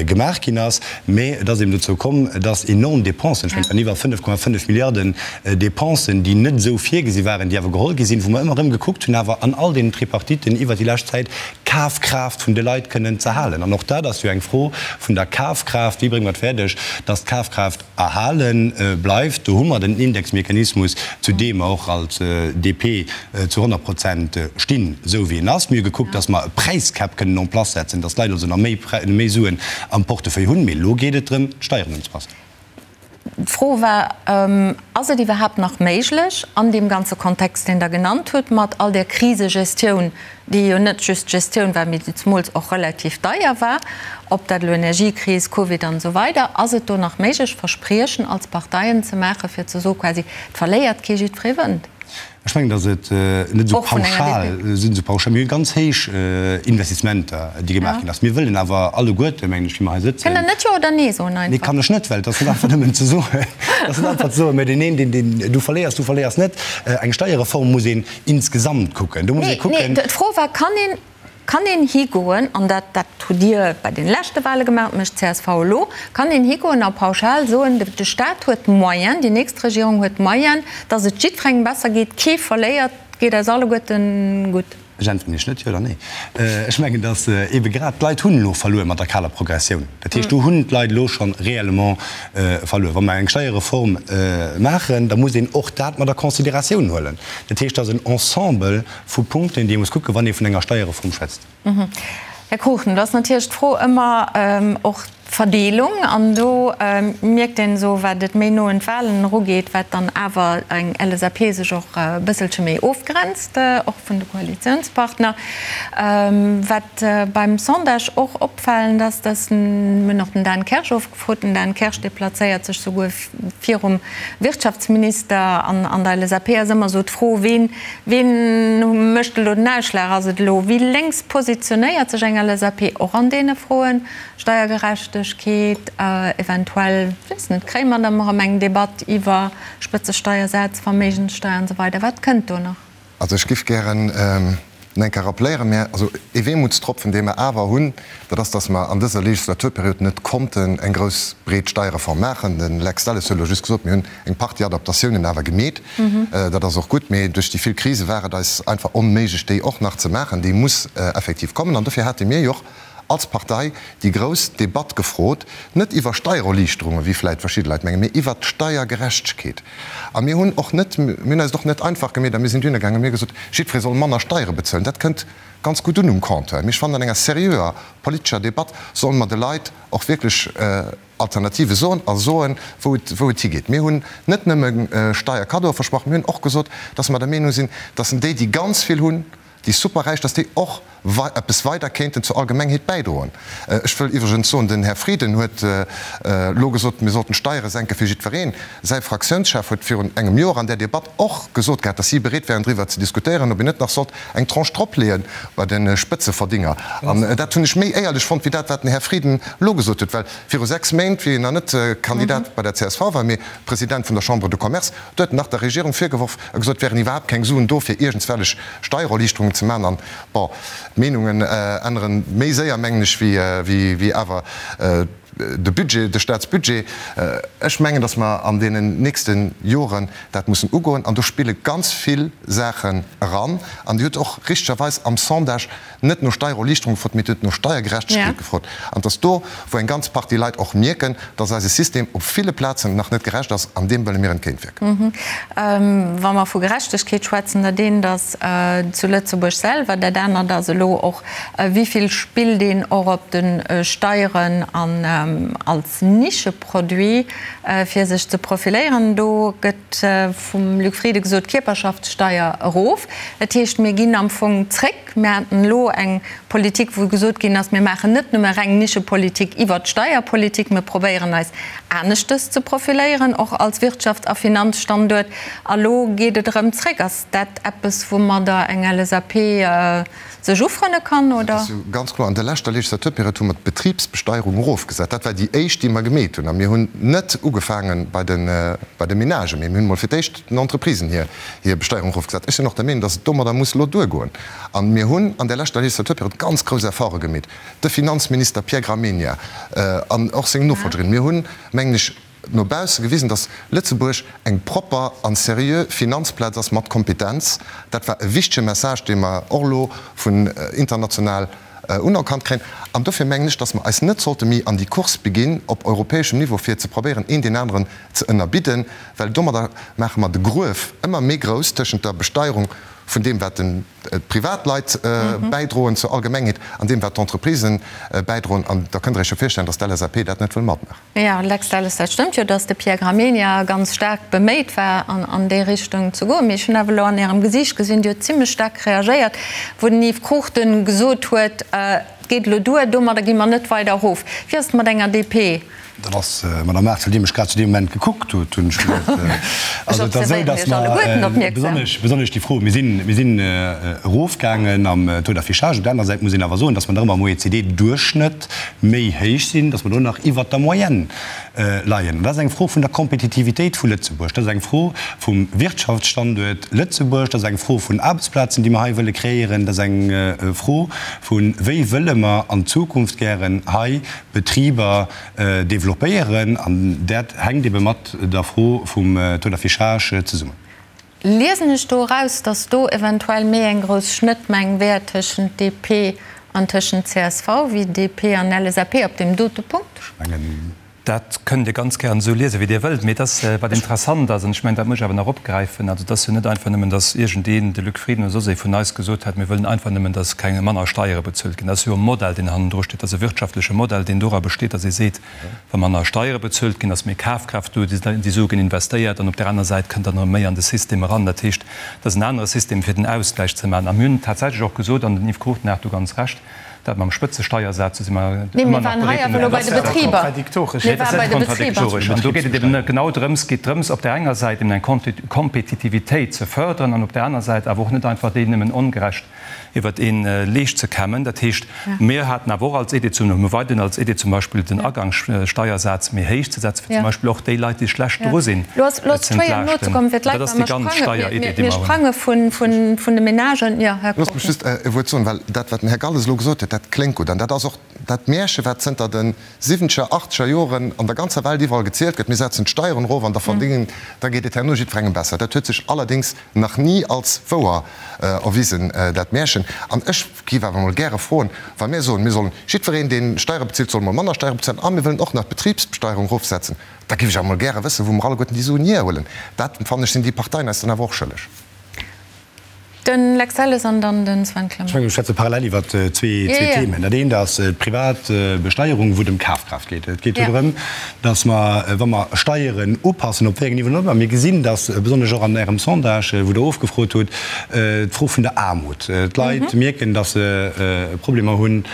gemaach ginn ass. Mä et ass eben dozou komm, dass enorm Dépensen, ech mengen, et waren iwwer 5,5 Milliarden Dépensen, déi net esou virgesi waren, déi awer geholl gi sinn, wou mer ëmmer erëm gekuckt hunn, awer an all deenen Tripartiten iwwert déi lescht Zäit, d'Kafkraaft vun de Leit kënnen z'erhalen. An och dat ass jo eng Fro vun der Kafkraaft, Wéi brénge mer et fäerdeg, dass d'Kafkraaft erhale bleift? Do hu mer den Indexmechanismus, zu deem mer och als DP zu 100 Prozent stinn, esou wéi en ass. Mir hu gekuckt, dass mer e Präiscap kënnen en place setzen, dass d'Leit also nach méi Suen am Portefeuille hunn. Mee elo geet et drëm, d'Steieren unzepassen. D'Fro war, Ass et iwwerhaapt nach méiglech, an deem ganze Kontext, deen Der genannt hutt, mat all där Krisegestioun, déi jo net just Gestioun war, mee déi zemools och relativ deier war, ob dat elo Energiekris, Covid an esou weider, ass et do nach méiglech, Verspriechen als Parteien ze maachen, fir ze soe quasi, et verléiert kee, jiddweree wënnt? Ech mengen, datt et net esou pauschal sinn, esou pauschal. Mir hu ganz héich Investissementer, déi gemaach ginn ass. Mir wëllen awer alleguerte, mengen ech, wéi mer hei sëtzen. Kënnt Der net Jo oder Nee soen einfach? Nee, kann ech net, well et ass net einfach nëmmen ze soen. Et ass net einfach ze soen, mä deen een, deen, deen, du verléiers, du verléiers net. Eng Steierreform muss een insgesamt kucken. Do muss ee kucken. Nee, nee, d'Fro war, Kann een Kann een higoen, an dat, dat hutt Dir bei den leschte Wahle gemaach, mécht d'CSV elo, kann een higoen a pauschal soen, de Stat huet d'Moyens, déi nächst Regierung huet d'Moyens, datt et jiddwerengem besser geet, kee verléiert, et geet eis alleguerten gutt? Ech äntweren Iech net jo oder nee. Ech mengen, datt eebe grad d'Leit hunn elo verluer mat der kaler Progressioun. Dat heescht, do hunn d'Leit elo scho réellement verluer. Wa mer eng Steierreform maachen, da muss een och dat mat a Considératioun huelen. Dat heescht, dat ass en Ensemble vu Punkten, déi ee muss kucken, wann ee vun enger Steierreform schwätzt. Här Cruchten, do ass natierlech d'Fro ëmmer och d'Verdeelung. An do mierkt een esou, wat et méi no un d'Wahlen erugeet, wat dann awer eng LSAP sech och e bësselche méi ofgrenzt, och vun de Koalitiounspartner. Wat beim Sondage och opfalend ass, dass, mir hunn och den Dan Kersch ofgefrot, den Dan Kersch, dee plazéiert sech souguer virum Wirtschaftsminister an an der LSAP ass ëmmer esou d'Fro, ween, ween mécht elo den Ausschlag? Ass et elo, wéi lénks positionéiert sech eng LSAP och an deene Froen, Steiergerechtegkeet, eventuell, weess net, kréie mer dann erëm eng Debatt iwwer Spëtzesteiersätz, Verméigenssteier an esou weider? Wat kënnt do nach? Also ech giff gären nach eng Kéier rappléieren, mä also ee Weemutstropfen, dee mer awer hunn, dat ass, dass mer an dëser Legislaturperiod net konnten eng grouss, breet Steierreform maachen. De Lex Delles huet elo just gesot, mir hunn eng Partie Adaptatiounen awer gemeet. Dat ass och gutt, mee duerch déi vill Krise war et eis einfach onméiglech, déi och nach ze maachen. Déi muss effektiv kommen. An dofir hate mir jo och als Partei déi grouss Debatt gefrot, net iwwer Steiererliichterungen, wéi vläicht verschidde Leit mengen, mee iwwert d'Steiergerechtegkeet. A mir hunn och net, mir hunn eis et och net einfach gemeet a mir sinn dohinner gaangen a mir hu gesot, jiddweree soll manner Steiere bezuelen. Dat kënnt ganz gutt un um Compteur. Mee ech fannen, an enger seriöer politescher Debatt solle mer de Leit och wierklech Alternative soen a soen, wou et, wou et higeet. Mir hunn net nëmme Steierkaddoe versprach, mir hunn och gesot, dass mer der Meenung sinn, dass déi, déi ganz vill hunn, déi Superräich, dass déi och eppes weider kéinten zur Allgemengheet bäidroen. Ech wëll iwwregens soen, den Här Frieden huet elo gesot, mir sollten d'Steiere senke fir jiddwereen. Säi Fraktiounschef huet virun engem Joer an där Debatt och gesot gehat, dass si bereet wären driwwer ze diskutéieren, ob een net nach sollt eng Tranche dropleeë bei de Spëtzeverdinger. An dat hunn ech méi éierlech fonnt wéi dat, wat den Här Frieden elo gesot huet. Well viru 6 Méint, wéi en nach net Kandidat bei der csv war, mee President vun der Chambre de Commerce, Do huet en nach der Regierung virgeworf a gesot, et wären iwwerhaapt keng Suen do, fir iergendswellech Steiererliichterungen ze maachen. An, bon, d'Meenungen änneren méi séier, mengen ech, wéi awer. De Budget, de Staatsbudget, ech mengen, datt mer an deenen nächste Joren dat mussen ugoen. An do spille ganz vill Saachen eran. An Dir hutt och richtegerweis am Sondage net no Steiererliichterung gefrot, mee Dir hutt no Steiergerechtegkeet gefrot. An et ass do, wou eng ganz Partie Leit och mierken, datt eise System op ville Plazen nach net gerecht ass. An deem wëlle mir entgéintwierken. Wa mer vu Gerechtegkeet schwätzen, dat eent ass zu Lëtzebuerg selwer, dat anert ass elo och, Wéi vill spillt een och op de Steieren an als Nischeproduit, fir sech ze profiléieren? Do gëtt vum Luc Frieden gesot, Kierperschaftssteier erof. Dat heescht, mir ginn am Fong zréck. Mir haten elo eng Politik, wou gesot ginn ass, mir maachen net nëmme reng Nischepolitik iwwert d'Steierpolitik, mir probéieren eis aneschtes ze profiléieren, och als Wirtschafts a Finanzstanduert. A lo geet et erëm zréck. Ass dat eppes, woumadder eng LSAP sech ufrënne kann, oder? Dat ass jo ganz kloer. An der leschter Legislaturperiod hu mer d'Betribsbesteierung erofgesat. Dat war déi éischt, déi mer gemeet hunn. A mir hunn net ugefaange bei de, bei de Menagen, mee mir hunn emol fir d'éischt den Entreprisen hir, hir Besteierung erofgesat. Ech sinn och der Meenung, dass et domadder muss elo duergoen. A mir hunn an der leschter Legislaturperiod ganz grouss Efforte gemeet, de Finanzminister Pierre Gramegna an och seng Nofolgerin. Mir hunn, mengen ech, no bausse gewisen, datt Lëtzebuerg eng propper an seriö Finanzplaz ass mat Kompetenz. Dat war e wichtege Message, dee mer och elo vun international unerkannt kréien. An dofir mengen ech, datt mer eis net sollte méi an déi Course beginn op europäeschem Niveau, fir ze probéieren, een deen aneren ze ënnerbidden, well domadder maache mer de Gruef ëmmer méi grouss tëschent der Besteierung vun deem, wat d'Privatleit bäidroen zur Allgemengheet, an deem, wat d'Entreprisen bäidroen. An da kënnt Der Iech jo virstellen, datt d'LSAP dat net wëll matmaachen. Jo, Lex Delles, dat stëmmt jo, datt de Pierre Gramegna ganz staark beméit war, an déi Richtung ze goen. Mee ech hunn awer elo an Ärem Gesiicht gesinn, Dir hutt zimlech staark reagéiert, wou den Yves Cruchten gesot huet, Et geet elo duer, domadder gi mer net weider erof. Wéi ass et mat enger DP? Dat ass, Madame Mars, well Dir mech grad zu deem Moment gekuckt hutt, hunn ech geduet. Also et ass esou, datt mer besonnesch, besonnesch déi Fro, mir sinn, mir sinn erofgaangen am Taux d'affichage. Op der anerer Säit muss een awer soen, datt mer nach ëmmer am OECD-Duerchschnëtt méi héich sinn, dass mer do nach iwwert der Moyenne leien. An dat ass eng Fro vun der Kompetitivitéit vu Lëtzebuerg, dat ass eng Fro vum Wirtschaftsstanduert Lëtzebuerg, dat ass eng Fro vun Aarbechtsplazen, déi mer hei wëlle kreéieren, dat ass eng Fro vu wéi wëlle mer an Zukunft gären hei Betriber développéieren. An dat hänkt ebe mat der Fro vum Taux d'affichage zesummen. Liesen ech do eraus, datt do eventuell méi eng grouss Schnëttmeng wär tëschent DP an tëschent csv wéi DP an LSAP op deem dote Punkt? Ech mengen, dat kënnt Dir ganz gären esou liesen, wéi Dir wëllt. Mee et ass, wat interessant ass, an ech mengen, dat muss ech awer nach opgräifen, also et ass jo net einfach nëmmen, datt iergendeen, de Luc Frieden oder soss ee vun eis, gesot hätt, mir wëllen einfach nëmmen, datt keng manner Steiere bezuelt ginn. Dat ass jo e Modell, deen hannendru steet. Dat ass e wirtschaftleche Modell, deen dora besteet, datt ee seet, Wa manner Steiere bezuelt ginn, ass méi Kafkraaft do, déi Sue ginn investéiert an op där aner Säit kënnt dann erëm méi an de System eran. Dat heescht, et ass en anere System, fir den Ausgläich ze maachen. A mir hunn tatsächlech och gesot, an den Yves Cruchten hat do ganz Recht, dat mam Spëtzesteiersaz, do si mer ëmmer nach bereet, en Dat ass net kontradiktoresch. An do geet et eben genau drëms, geet drëms, op där enger Säit eben eng Kompetitivitéit ze förderen an op där aner Säit awer och net einfach déi nëmmen ongerecht iwwert ee Leescht ze kämmen. Dat heescht, mir haten awer och als Idee, hu mer weiderhin als Idee zum Beispill den Agangssteiersaz méi héich ze setzen, fir zum Beispill och déi Leit, déi schlecht dru sinn, ze entlaaschten. Dat ass déi ganz Steieridee, déi mer hunn. Loosst mech just e Wuert soen, well dat, wat den Här Galles elo gesot huet, dat kléngt gutt an dat ass och dat Märche, wat zënter de siwwenzeger, achtzeger Joren an der ganzer Welt iwwerall gezielt gëtt, Mir setzen d'Steieren erof an da verdéngen, da geet et herno jiddwerengem besser. Dat huet sech allerdéngs nach ni als wouer erwisen, dat Märchen. An ech géif awer emol gäre froen, wa mir soen, mir sollen jiddwereen, dee Steiere bezilt, soll emol manner Steiere bezuelen a mir wëllen och nach d'Betribsbesteierung erofsetzen, da géif ech awer emol gäre wëssen, wou mer alleguerten déi Suen hierhuelen. Dat, fannen ech, sinn déi Parteien eis dann awer och schëlleg. Den Lex Delles an dann den Sven Clement. Ech mengen, mir schwätze parallel iwwer zwee Themen. Dat eent ass d'Privatbesteierung, wou et ëm Kafkraaft geet. Et geet do drëm, datt mer, wa mer Steieren upassen, op wéi engem Niveau och ëmmer, mir gesinn, datt besonnesch och an Ärem Sondage, wou Der ofgefrot hutt, d'Fro vun der Aarmut, d'Leit mierken, datt se Problemer hunn,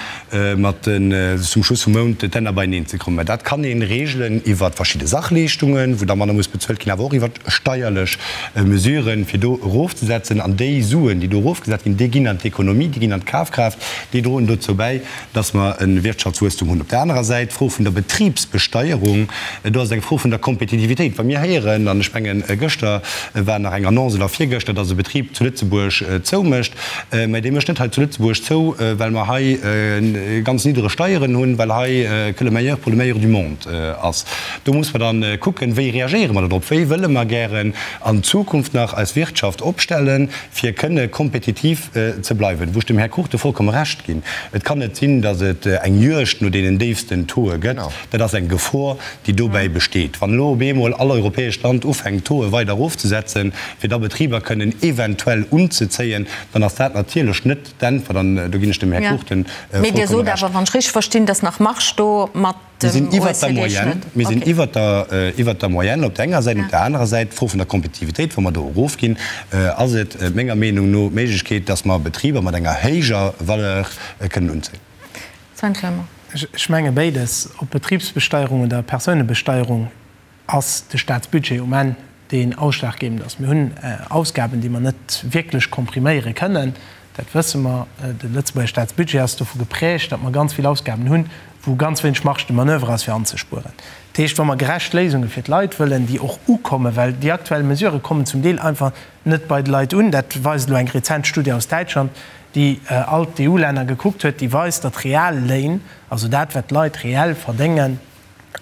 mat den, zum Schluss vum Mount d'Hänner beieneen ze kréien. Mä dat kann ee regelen iwwer verschidde Sachleeschtungen, wou da manner muss bezuelt ginn, awer och iwwer steierlech Mesuren, fir do erofzesetzen. An déi Suen. Suen, déi do erofgesat ginn, déi ginn an d'Ekonomie, déi ginn an d'Kafkraaft, déi droen dozou bäi, dass mer e Wirtschaftswuesstum hunn. Op där anerer Säit d'Fro vun der Betribsbesteierung, do ass et eng Fro vun der Kompetitivitéit. Wa mir héieren, an ech mengen, gëschter war nach eng Annonce oder virgëschter, dass e Betrib zu Lëtzebuerg zoumécht, mä dee mécht net hei zu Lëtzebuerg zou, well mer hei ganz niddreg Steieren hunn, well hei que le meilleur pour le meilleur du monde ass. Do muss mer dann kucken, wéi reagéiere mer dodrop, wéi wëlle mer gären an Zukunft nach eis Wirtschaft opstellen, fir kënne kompetitiv ze bleiwen. Wou ech dem Här Cruchten vollkomme Recht ginn, Et kann net sinn, datt et eng Juegd no deenen déifsten Tauxe gëtt. Dat ass eng Gefor, déi dobäi besteet. Wann elo op eemol all europäescht Land ufänkt, d'Tauxe weider erofzesetzen, fir da Betriber kënnen eventuell unzezéien, dann ass dat natierlech net d'Äntwert. An do ginn ech dem Här Cruchten vollkomme Recht. Mee Dir sot awer, wann ech richteg verstinn, datt nach Marge do mat Mir sinn iwwert der Moyenne. Mir sinn iwwert der, iwwert der Moyenne op der enger Säit. Op der anerer Säit, d'Fro vun der Kompetitivitéit, wa mer do erofginn, ass et menger Meenung no d'Méiglechkeet, dass mer Betriber mat enger héijer Valeur kënnen unzéien. Sven Clement. Ech menge béides, ob Betribsbesteierung oder Persounebesteierung, ass de Staatsbudget um Enn deen ausschlaggebend ass. Mir hunn Ausgaben, déi mer net wierklech kompriméiere kënnen, dat wësse mer. De Lëtzebuerger Staatsbudget ass dovu geprägt, datt mer ganz vill Ausgaben hunn, wou ganz wéineg Marge de manoeuvre ass fir anzespueren. Dat heescht, wa mer gerecht Léisunge fir d'Leit wëllen, déi och ukommen, well déi aktuell Mesurë kommen zum Deel einfach net bei de Leit un, dat weist elo eng rezent Studie aus Däitschland, déi all d'EU-Länner gekuckt huet, déi weist, datt d'Realléin, also dat wat d'Leit reell verdéngen,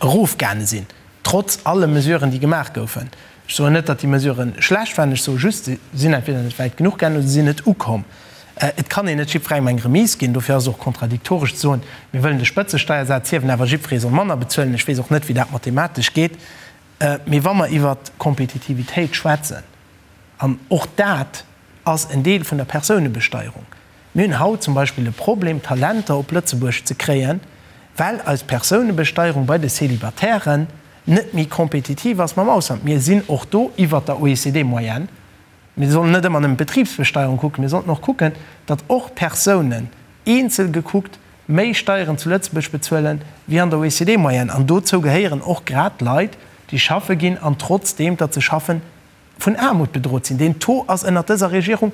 erofgaange sinn, trotz alle Mesuren, déi gemaach goufen. Ech soen net, datt déi Mesurë schlecht waren, ech soe just, se sinn entweder net wäit genuch gaangen oder se sinn net ukomm. Et kann een net jiddwerengem eng Remise ginn. Dofir ass et och kontradiktoresch ze soen, mir wëllen de Spëtzesteiersaz hiewen, awer jiddweree soll manner bezuelen. Ech weess och net, wéi dat mathematesch geet. Mee wa mer iwwert Kompetitivitéit schwätzen, an och dat ass en Deel vun der Persounebesteierung, Mir hunn haut zum Beispill e Problem, Talenter op Lëtzebuerg ze kréien, well eis Persounebesteierung bei de Célibatairen net méi kompetitiv ass mam Ausland. Mir sinn och do iwwert der OECD-Moyenne. Mir sollen net ëmmer nëmmen d'Betribsbesteierung kucken, mir sollten och kucken, datt och Persounen, eenzel gekuckt, méi Steieren zu Lëtzebuerg bezuelen wéi an der OECD-Moyenne. An dozou gehéieren och grad Leit, déi schaffe ginn an trotzdeem, datt se schaffen, vun Aarmut bedrot sinn. Deen Taux ass ënnert dëser Regierung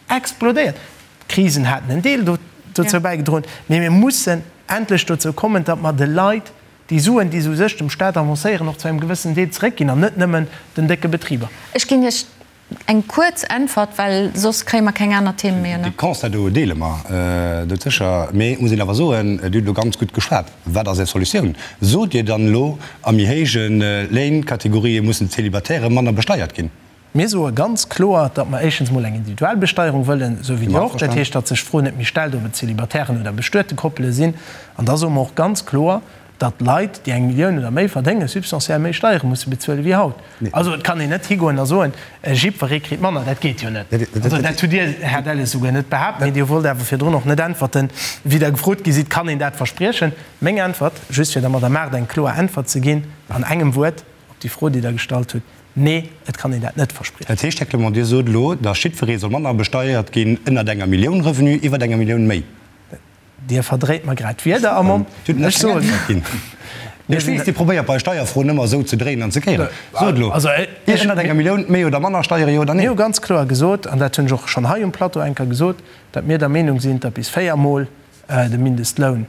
explodéiert. D'Krisen haten en Deel dozou bäigedroen, mee mir mussen endlech dozou kommen, datt mer de Leit déi Suen, déi se u sech dem Staat avancéieren, och zu engem gewëssenen Deel zeréckginn an net nëmmen den décke Betriber. Ech ginn Iech eng kuerz Äntwert, well soss kréie mer keng aner Themen méi ënner. Dee Constat do deele mer doudsécher. Mee et muss een awer soen, Dir hutt elo ganz gutt geschwat. Wat ass Är Solutioun? Sot Dir dann elo, a méi héije Léinkategorië mussen d'Célibatairë manner besteiert ginn? Mir soe ganz kloer, datt mer éischtens emol eng individuell Besteierung wëllen, esou wéi Dir och. Dat heescht, datt sech d'Fro net méi stellt, ob et Célibataires oder bestuete Koppele sinn. An da soe mer och ganz kloer, datt Leit, déi eng Millioun oder méi verdéngen, substantiell méi Steiere musse bezuele wéi haut. Also et kann een net higoen a soen, jiddweree kritt manner. Dat geet jo net. Also dat hutt Dir, Här Delles, souguer net behaapt. Mee Dir wollt awer virdrun och net äntwerten, wéi Der gefrot gi sidd, Kann een dat verspriechen? Meng Äntwert, just fir der Madame Mart eng kloer Äntwert ze ginn an engem Wuert op déi Fro, déi Der gestallt hutt, Nee, et kann een dat net verspriechen. Dat heescht, Här Clement, Dir sot elo, datt jiddweree soll manner besteiert ginn ënnert enger Millioun Revenu, iwwert enger Millioun méi. Dir verdréit mer grad d'Wierder am Mond. Dir hutt nach keng Äntwert ginn. Ech weess, Dir probéiert bei Steierfroen ëmmer esou ze dréinen an ze kéieren. Sot elo, Iech ënnert enger Millioun méi oder manner Steiere, jo oder nee? Mir hu ganz kloer gesot, an dat hunn ech och schonn hei um Plateau eng Kéier gesot, datt mir der Meenung sinn, datt bis véiermol de Mindestloun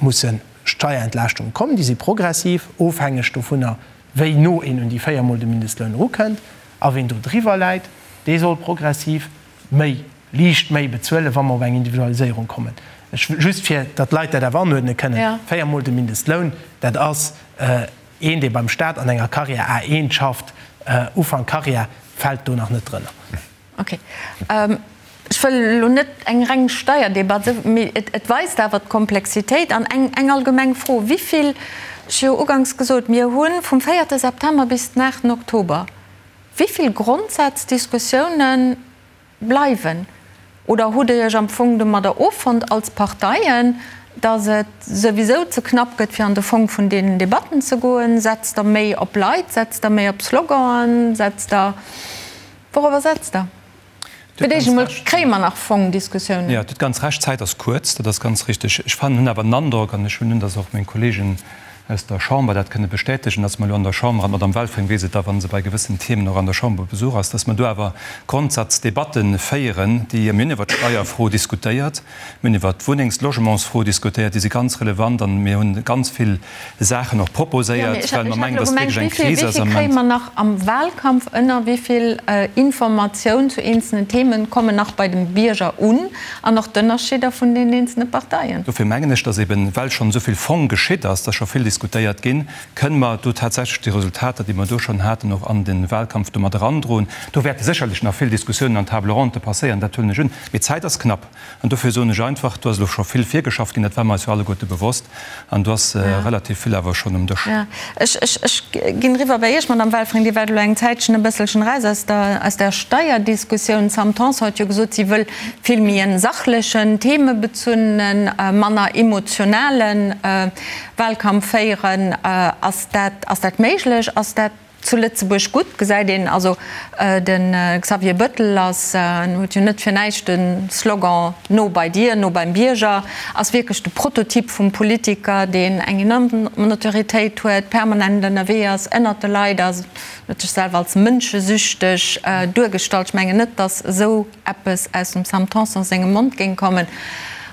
musse Steierentlaaschtunge kommen. Déi si progressiv, ofhängeg dovunner, wéi no een un déi véiermol de Mindestloun erukënnt. A ween do driwwer läit, dee soll progressiv méi, liicht méi bezuelen, wa mer op eng Individualiséierung kommen. Ech, just fir datt d'Leit dat awer anuerdne kënnen, véiermol de Mindestloun, dat ass een, dee beim Staat an enger Carrière A1 schafft, Ufank Carrière, fält do nach net drënner. Ok. Ech wëll elo net eng reng Steierdebatt, mee et weist awer d'Komplexitéit. An eng allgemeng Fro, Wéi vill, ech hu jo uganks gesot, mir hu vum véierte September bis den aachten Oktober, wéi vill Grondsaazdiskussiounen bleiwen? Oder hutt Dir Iech am Fong domadder offonnt als Parteien, datt et souwisou ze knapp gëtt, fir an de Fong vun deenen Debatten ze goen? Setzt Der méi op Leit? Setzt Der méi op Sloganen? Setzt Der Wourobber setzt Der? Fir d'éischt emol, kréie mer nach Fongdiskussiounen? Jo, Dir hutt ganz Recht, d'Zäit ass kuerz, dat ass ganz richtig. Ech fannen, hunn awer den Androck, an ech hunn un, datt och meng Kollegen. aus der Chamber dat kënne bestätegen, dass mer elo an der Chamber, an d'Madame Welfring weess et da, wa se bei gewëssen Themen och an der Chamber op Besuch ass, dass mer do awer Grondsazdebatte féieren, déi, mir hunn iwwert d'Steierfro diskutéiert, mir hunn iwwert d'Wunnengs-, d'Logementsfro diskutéiert, déi si ganz relevant an mir hunn ganz vill Saachen och proposéiert, well mer mengen, dass et wierklech eng Kris ass am Wéi vill kréie mer nach am Wahlkampf ënner? Wéi vill Informatioun zu eenzelnen Themen kommen nach bei dem Bierger un? An och d'Ënnerscheeder vun den eenzelne Parteien. Dofir mengen ech, dass eben, well schonn esou vill Fong geschitt ass, dass scho vill diskutéiert ginn, kënne mer do tatsächlech déi Resultater, déi mer do schonn haten, och an de Wahlkampf do mat erandroen. Do wäerte sécherlech nach vill Diskussiounen an Table ronde passéieren, dat huelen ech un. Mee d'Zäit ass knapp. An dofir soen ech einfach, do ass elo scho vill virgeschafft ginn, dat war mer eis jo alleguerte bewosst, an do ass relativ vill awer schonn um Dësch. Jo, ech, ech, ech ginn eriwwer bei Iech, Madamm Welfring. Dir waart elo eng Zäitchen e bësselchen eraus aus der, aus der Steierdiskussioun. D'Sam Tanson huet jo gesot, si wëll vill méi en sachlechen, themebezunnenen, manner emotionale Wahlkampf féieren. Ass dat, ass dat méiglech? Ass dat Zu Lëtzebuerg gutt gesäit een also, de Xavier Bëttel ass, en huet jo net fir näischt de Slogan No bei dir, no beim Bierger, ass wierklech de Prototyp vum Politiker, deen eng enorm Notoriétéit huet, permanent ënnerwee ass, ënnert de Leit ass, huet sech selwer als mënschesüchteg duergestallt. Ech mengen net, datt esou eppes aus dem Sam Tanson sengem Mond géing kommen.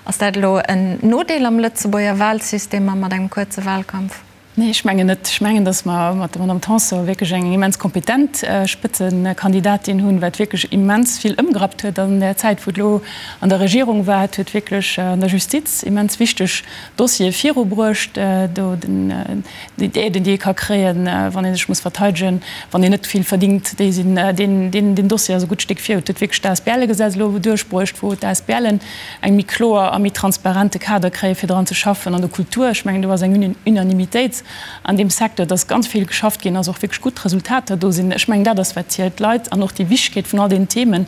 Ass dat elo en Nodeel am Lëtzebuerger Wahlsystem a mat engem kuerze Wahlkampf? Nee, ech mengen net. Ech mengen, datt mer mat der Madame Tanson wierklech eng immens kompetent Spëtzekandidatin hunn, wat wierklech immens vill ëmgerappt huet an där Zäit, wou et elo an der Regierung war. Et huet wierklech an der Justiz immens wichteg Dossiere virubruecht, do den, déi Aiden, déi ee ka kréien, wann ee sech muss verteidegen, wann een net vill verdingt, déi sinn, deen, deen, deen Dossier ass e gutt Stéck viru. Et huet wierklech d'ASBLe-Gesetz elo duerchbruecht, wou d'ASBLen eng méi kloer a méi transparente Kader kréien, fir dran ze schaffen. An der Kultur, ech mengen, do ass eng Unanimitéit an deem Secteur, dass ganz vill geschafft ginn ass, och wierklech gutt Resultater do sinn. Ech mengen, dat ass, wat zielt. D'Leit an och déi Wichtegkeet vun all deenen Themen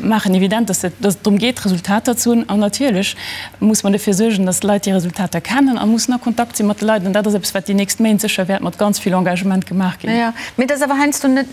maachen evident, dass et drëm geet, Resultater ze hunn. An natierlech muss mer dofir suergen, dass d'Leit déi Resultater kennen a mussen a Kontakt si mat de Leit. An dat ass eppes, wat déi nächst Méint sécher wäert mat ganz vill Engagement gemaach ginn. Jo, mee et ass awer heiansdo net,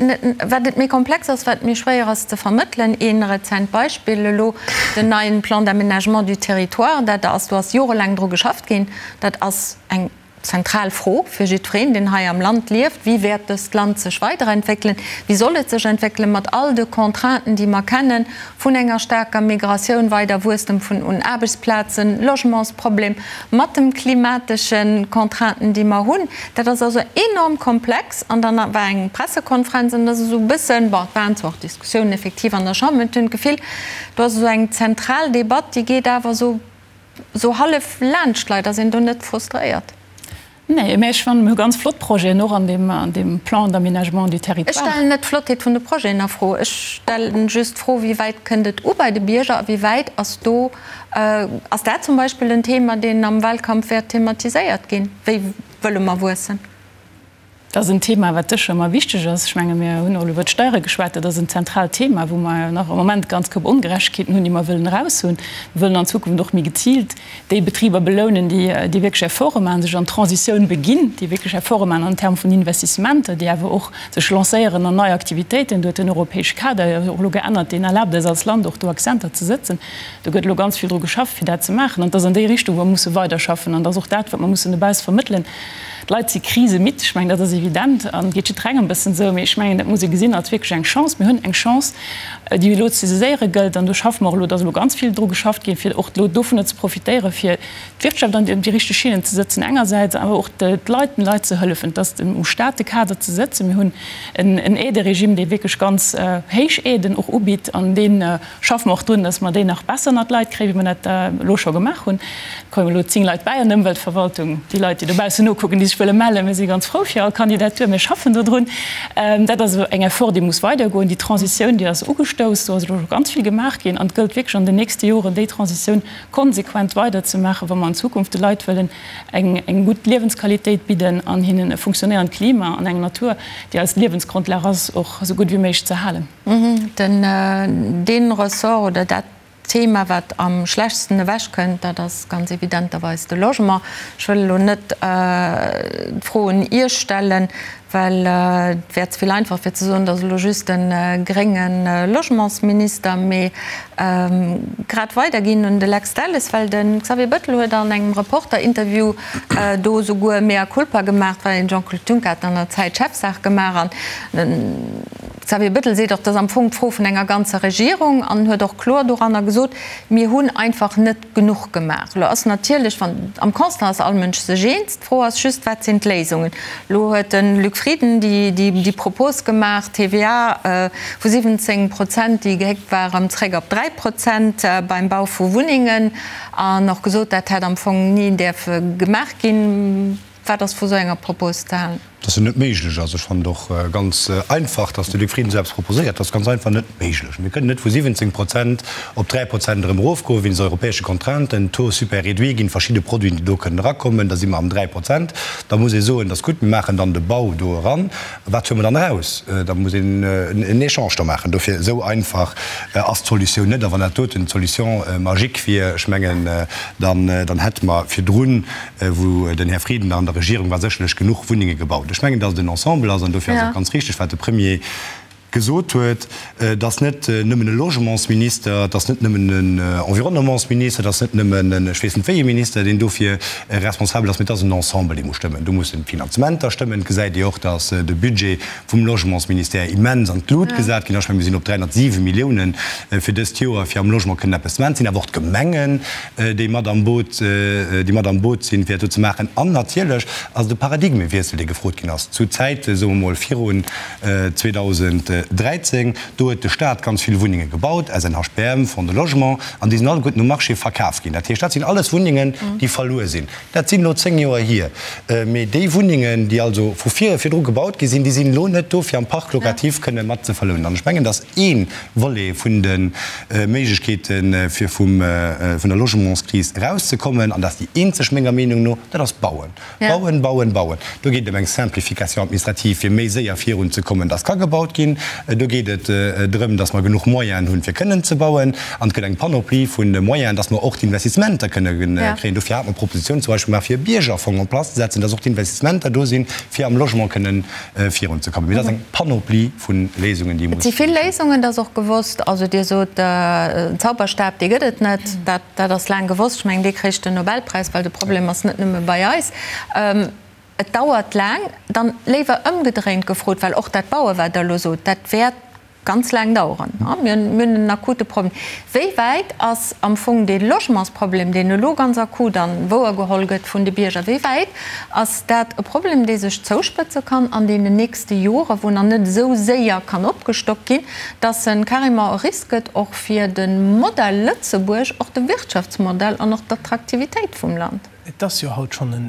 wat et méi komplex ass, wat méi schwéier ass ze vermëttelen. Ee rezent Beispill elo, Den neien Plan d'aménagement du territoire, dat ass, do ass jorelaang dru geschafft ginn, dat ass eng zentral Fro fir jiddwereen, deen hei am Land lieft, Wéi wäert dëst Land sech weiderentwéckelen? Wéi soll et sech entwéckelen, mat all de Contrainten, déi mer kennen, vun enger staarker Migratioun, weider Wuesstem vun un Aarbechtsplazen, Logementsproblem, mat dem klimatesche Contrainten, déi mer hunn? Dat ass also enorm komplex. An dann war eng Pressekonferenz an da ass esou e bëssen, bon, et waren zwar och Diskussiounen effektiv an der Chamber, mee ech hunn d'Gefill, do ass esou eng zentral Debatt, déi geet awer esou, esou hallef laanscht d'Leit. Ass een do net frustréiert? Nee, mä ech fannen, mir hu ganz flott Projeten och an deem, an deem Plan d'aménagement du territoire. Ech stellen net d'Flottheet vun de Projeten a Fro. Ech stellen just d'Fro, Wéi wäit kënnt et u bei de Bierger a wéi wäit ass do, ass dat zum Beispill en Thema, deen am Wahlkampf wäert thematiséiert ginn? Wéi wëlle mer wuessen? Dat ass en Thema, wat sécher ëmmer wichteg ass. Ech menge mir hunn och elo iwwert d'Steiere geschwat. Dat ass en zentraalt Thema, wou mer nach am Moment ganz Koup Ongerechtegkeeten hunn, déi mer wëllen eraushunn. Mir wëllen an Zukunft och méi geziilt déi Betriber belounen, déi déi wierklech Efforte maachen, sech an d'Transitioun beginn, déi wierklech Efforte maachen an Terme vun Investissementer, déi awer och sech lancéieren an nei Aktivitéiten. Do huet den europäesche Kader jo och elo geännert, deen erlaabt eis als Land och do Accenter ze sëtzen. Do gëtt elo ganz vill dru geschafft, fir dat ze maachen. An et ass an déi Richtung, wou mer musse weiderschaffen. An et ass och dat, wat mer mussen dobausse vermëttelen. D'Leit si krisemidd, ech mengen, dat ass evident an geet jiddwerengem e bëssen esou. Mee ech mengen, dat muss ee gesinn als wierklech eng Chance. Mir hunn eng Chance, déi elo ze saiséiere gëllt. An do schaffe mer och elo, et ass elo ganz vill dru geschafft ginn, fir och elo dovunner ze profitéieren, fir d'Wirtschaft an déi richteg Schinnen ze sëtzen engersäits, awer och d'Leit, den Leit ze hëllefen, dass um Staat de Kader ze sëtzen. Mir hunn en Aideregime, dee wierklech ganz héich Aiden och ubitt an deen, Schaffe mer och drun, dass mer déi nach besser ënnert d'Leit kréien, wéi mer dat elo scho gemaach hunn. Et kommen elo 10 Leit bäi an der Ëmweltverwaltung. Déi Leit, déi dobaussen nokucken, déi sech wëlle mellen, mir si ganz frou fir all Kandidatur. Mir schaffen dodrun. Dat ass eng Effort, déi muss weidergoen. Déi Transitioun, déi ass ugestouss. Do ass elo scho ganz vill gemaach ginn. An et gëllt wierklech an den nächste Joren, déi Transitioun konsequent weiderzemaachen, wa mer an Zukunft de Leit wëllen eng gutt Liewensqualitéit bidden an hinnen e funktionéierend Klima an eng Natur, déi eis Liewensgrondlag ass, och esou gutt wéi méiglech ze halen. Den, dee Ressort oder dat. Thema, wat am schlechtsten ewechkënnt, dat ass ganz evidenterweis de Logement. Ech wëll elo net d'Fro un Iech stellen, well et wär ze vill einfach fir ze soen, et ass elo just de grénge Logementsminister, mee grad weiderginn un de Lex Delles, well de Xavier Bettel huet an engem Reporter-Interview do esouguer mea culpa gemaach, well den Jean-Claude Juncker hat an der Zäit Chefsaach gemaach an Xavier Bettel seet och, dat ass am Fong d'Fro vun enger ganzer Regierung an huet och kloer doranner gesot, mir hunn einfach net genuch gemaach. Elo ass natierlech, wann, am Constat ass all Mënsch sech eens, d'Fro ass just, wat sinn d'Léisungen? Elo huet de Luc Frieden déi Propos gemaach, TVA vu 17 Prozent, déi gehéckt war, erëm zréck op 3 Prozent beim Bau vu Wunnengen an och gesot, dat hätt am Fong ni däerfe gemaach ginn. Wat ass vu sou enger Propos ze halen? Dass se net méiglech ass. Ech fannen et och ganz einfach, dass de Luc Frieden esou eppes proposéiert. Dat ass ganz einfach net méiglech. Mir kënnen net vu 17 Prozent op 3 Prozent erëm erofgoen, wéinst europäesche Contrainten. Taux super réduit ginn verschidde Produiten, déi do kënnen erakommen. Da si mer am 3 Prozent. Da muss ee soen, dat ass gutt, mir maachen dann de Bau do eran. Wat huele mer dann eraus? Da muss een en Echange do maachen. Dofir, esou einfach ass d'Solutioun net. A wann dat doten d'Solution magique wier, ech mengen, dann hätte mer virdrun, wou den Här Frieden nach an der Regierung war, sécherlech genuch Wunnenge gebaut. Ech mengen, datt et en Ensemble ass, an dofir ass och ganz richtig, wat de Premier gesot huet, et ass net nëmmen e Logementsminister, et ass net nëmmen en Environnementsminister, et ass net nëmmen en ech weess net wéi ee Minister, deen dofir responsabel ass, mee et ass en Ensemble, dee muss stëmmen. Do mussen d'Finanzementer stëmmen. Et gesäit Dir och, datt de Budget vum Logementsministère immens an d'Lut gesat ginn ass. Ech mengen, mir sinn op 307 Milliounen fir dëst Joer, fir am Logement kënnen eppes ze maachen. Et sinn awer och d'Gemengen, déi mat am Boot, déi mat am Boot sinn, fir dat do ze maachen. An natierlech ass et e Paradigmewiessel, dee gefrot ginn ass zu Zäite, soe mer mol, virun 2013. Do huet de Stat ganz vill Wunnenge gebaut, SNHBM, Fonds de Logement, an déi sinn alleguerten um Marché verkaf ginn. Dat heescht, dat sinn alles Wunnengen, déi verluer sinn. Dat sinn elo 10 Joer hier. Mee déi Wunnengen, déi also vu vir virdru gebaut gi sinn, déi sinn elo net do, fir am Parc locatif kënne mat ze verlounen. An ech mengen, dass ee Volet vun de Méiglechkeeten, fir vum, vun der Logementskris erauszekommen, an dat ass déi eenzeg menger Meenung no, dat ass bauen. Bauen, bauen, bauen. Do geet et ëm eng Simplification administrative, fir méi séier virunzekommen, dass ka gebaut ginn. Do geet et drëm, dass mer genuch Moyenen hunn, fir kënnen ze bauen. An et gëtt eng Panoplie vu Moyenen, dass mer och d'Investissementer kënne kréien. Dofir hate mer d'Proposition zum Beispill gemaach, fir e Biergerfong en place ze setzen, dass och d'Investissementer do sinn, fir am Logement kënnen virunzekommen. Mee dat ass eng Panoplie vu Léisungen, déi muss. Et si vill Léisungen, dat ass och gewosst. Also Dir sot, en Zauberstab, dee gëtt et net. Dat, dat ass laang gewosst. Ech mengen, dee kréich den Nobelpräis, well de Problem ass net nëmme bei eis. Et dauert laang. Dann léiwer ëmgedréint gefrot, well och dat Bauen, wat Der elo sot, dat wäert ganz laang daueren. Mir hunn en akute Problem. Wéi wäit ass am Fong dee Logementsproblem, deen elo ganz akut a wouergeholl gëtt vun de Bierger, wéi wäit ass dat e Problem, dee sech zouspëtze kann an deenen nächste Joren, wou nach net esou séier kann opgestockt ginn, dass en carrément e Risk gëtt och fir de Modell Lëtzebuerg, och de Wirtschaftsmodell an och d'Attraktivitéit vum Land? Et ass jo haut schonn en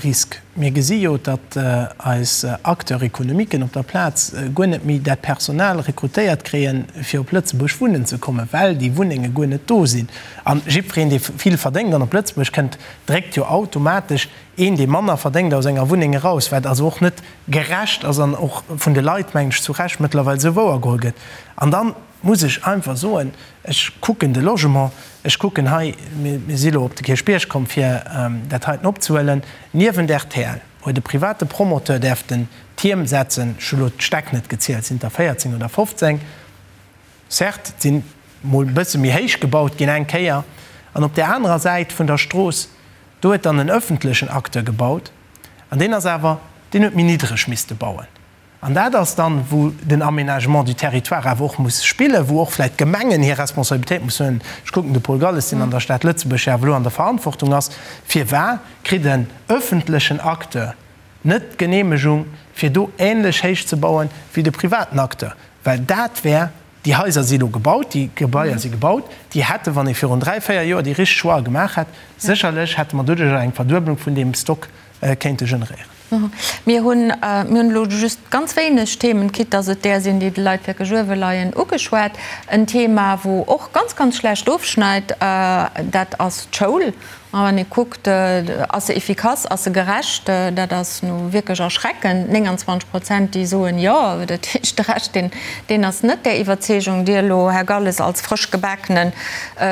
Risk. Mir gesi jo, datt eis Acteurs économiquen op der Plaz guer net méi dat Personal rekrutéiert kréien, fir op Lëtzebuerg wunnen ze kommen, well déi Wunnenge guer net do sinn. A jiddwereen, dee vill verdéngt an op Lëtzebuerg kënnt, dréckt jo automatesch een, dee manner verdéngt, aus enger Wunneng eraus, wat also och net gerecht ass an och vun de Leit, mengen ech, zu Recht mëttlerweil esou wouergeholl gëtt. An dann muss ech einfach soen, ech kucken de Logement, ech kucken hei, mir si elo op de Kierchbierg komm, fir dat heiten opzehuelen, niewent rtl huet e private Promoteur däerften Tierm setzen, ech hu elo d'Stäck net gezielt, sinn et der 14 oder 15, certes, et sinn mol e bësse méi héich gebaut ginn eng Kéier, an op där anerer Säit vun der Strooss, do huet dann en öffentlechen Acteur gebaut, an deen ass awer, deen huet méi niddreg misste bauen. An dat ass dann, wou den Aménagement du territoire awer och muss spillen, wou och vläicht d'Gemengen hir Responsabilitéit mussen huelen. Ech kucken de Paul Galles, deen an der Stad Lëtzebuerg jo awer elo an der Verantwortung ass. Firwar kritt en öffentlechen Acteur net d'Genehmegung, fir do ähnlech héich ze bauen wéi de privaten Acteur? Well dat wär, déi Haiser si elo gebaut, déi Gebaier si gebaut, déi hätte, wann ee virun dräi, véier Joer déi richteg Choixë gemaach hätt, sécherlech hätte mer doduerjer eng Verduebelung vun deem Stock kéinte generéieren. Mir hunn, mir hunn elo just ganz wéineg Themen, quitte dass et där sinn, déi de Leit wierklech uewe leien, ugeschwat. En Thema, wou och ganz, ganz schlecht ofschneit, dat ass d'Schoul. A wann ee kuckt, ass se efficace, ass se gerecht, dat ass nu wierklech erschreckend, 29 Prozent, déi soen jo. Dat heescht, de Rescht, deen, deen ass net där Iwwerzeegung. Dir elo, Här Galles, als frësch gebakene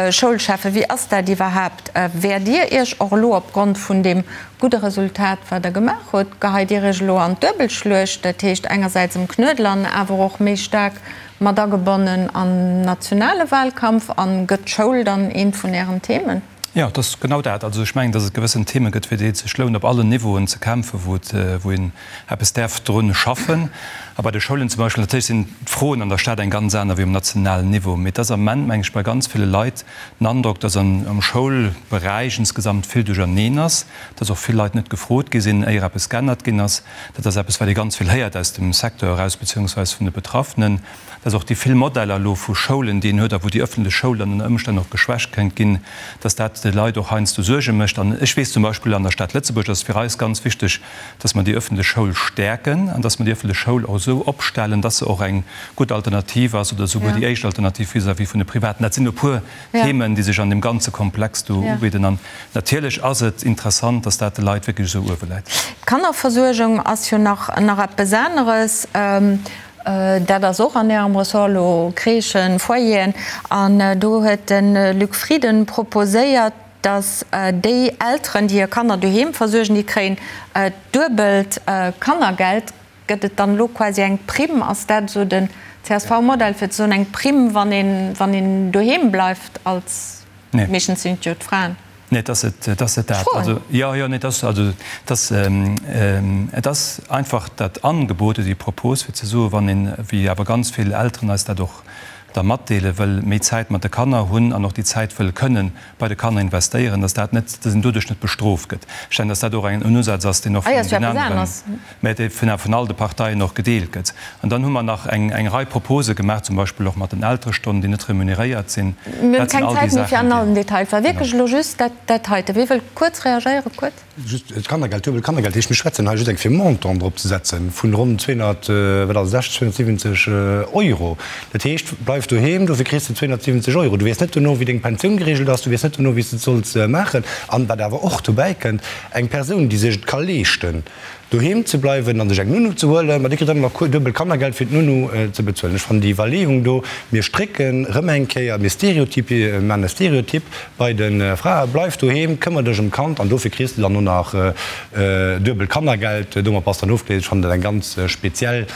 Schoulschäffe, wéi ass dat iwwerhaapt? Wäert Dir Iech och elo opgrond vun deem gudde Resultat, wat Der gemaach hutt, geheit Dir Iech elo an d'Duebelschluecht, dat heescht engersäits um Knuedler an awer och méi staark mat agebonnen am nationale Wahlkampf? A gëtt d'Schoul dann eent vun Ären Themen? Jo, et ass genau dat. Also ech mengen, datt et gewëssen Theme gëtt, fir déi et sech lount, op allen Niveauen ze kämpfen, wou et, wou een eppes däerf drun schaffen. A bei de Schoulen zum Beispill, natierlech sinn d'Froen an der Stad eng ganz aner wéi um nationalen Niveau, mee et ass am Ament, meng ech, bei ganz ville Leit den Androck, datt an, am Schoulberäich insgesamt vill duercherneen ass, datt och vill Leit net gefrot gi sinn, éier eppes geännert ginn ass. Dat ass eppes, wat ee ganz vill héiert aus dem Secteur eraus, beziehungsweis vun de Betraffenen. dass och déi vill Modeller elo vu Schoulen, déi een huet a wou déi öffentlech Schoul dann ënner Ëmstänn och geschwächt kéint ginn, dass dat de Leit och heiansdo Suerge mécht. An ech weess zum Beispill an der Stad Lëtzebuerg ass et fir eis ganz wichteg, dass mer déi öffentlech Schoul stäerken an dass mer déi öffentlech Schoul och esou opstellen, dass se och eng gutt Alternativ ass oder souguer déi éischt Alternativ vis-à-vis vun de Privaten. Dat sinn e puer Themen, déi sech an deem ganze Komplex do ubidden. An natierlech ass et interessant, dass dat de Leit wierklech esou uewe läit. D'Kannerversuergung ass jo nach eppes aneres. Dat ass och an Ärem Ressort elo, Crèchen, Foyeren. An do huet de Luc Frieden proposéiert, datt déi Elteren, déi hir Kanner doheem versuergen, déi kréien d'duebelt Kannergeld. Gëtt et dann elo quasi eng Primm? Ass dat esou den CSV-Modell, fir ze soen, eng Primm, wann een doheem bleift als, meeschtens sinn et jo d'Fraen? Nee, et ass et, et ass net dat. Also, jo, jo, nee, et ass, also, et ass, et ass einfach dat Angebot oder déi Propos, fir ze soen, wann een, wéi awer ganz vill Elteren eis dat och da matdeelen, wëll méi Zäit mat de Kanner hunn an och déi Zäit wëll kënnen bei de Kanner investéieren, dass dat net, dass een doduerch net bestrooft gëtt. Ech denken, dass dat och en Usaz ass, deen och vun den aneren, mä dee vun vun all de Parteien och gedeelt gëtt. An dann hu mer nach eng eng Rei Propose gemaach, zum Beispill och mat den Elterestonnen, déi net remuneréiert sinn. Mir hunn keng Zäit méi fir an allen Detail. Et war wierklech elo just dat dat heite. Wie wëll kuerz reagéieren? Kuerz. Just d'Kannergeld, duebel Kannergeld heescht, mir schwätzen hei just eng fir Montant drop ze setzen vun ronn 200, wat ass et, 270 Euro. Dat heescht, bleif doheem, dofir kriss de 270 Euro. Du weess net dono, wéi deng Pensioun geregelt ass, du weess net dono, wéi s de et solls maachen. An wat awer och dobäi kënnt, eng Persoun, déi sech et ka leeschten, doheem ze bleiwen an sech eng Nounou ze huelen, ma déi kritt dann nach duebel Kannergeld fir d'Nounou ze bezuelen. Ech fannen déi Iwwerleeung do, mir strécken rëm eng Kéier, mir stereotypi, maachen e Stereotyp bei de Frae, bleif doheem, këmmer dech ëm d'Kand an dofir kriss de dann och nach duebel Kannergeld, domat bass dann ofgeléist. Ech fannen dat eng ganz speziell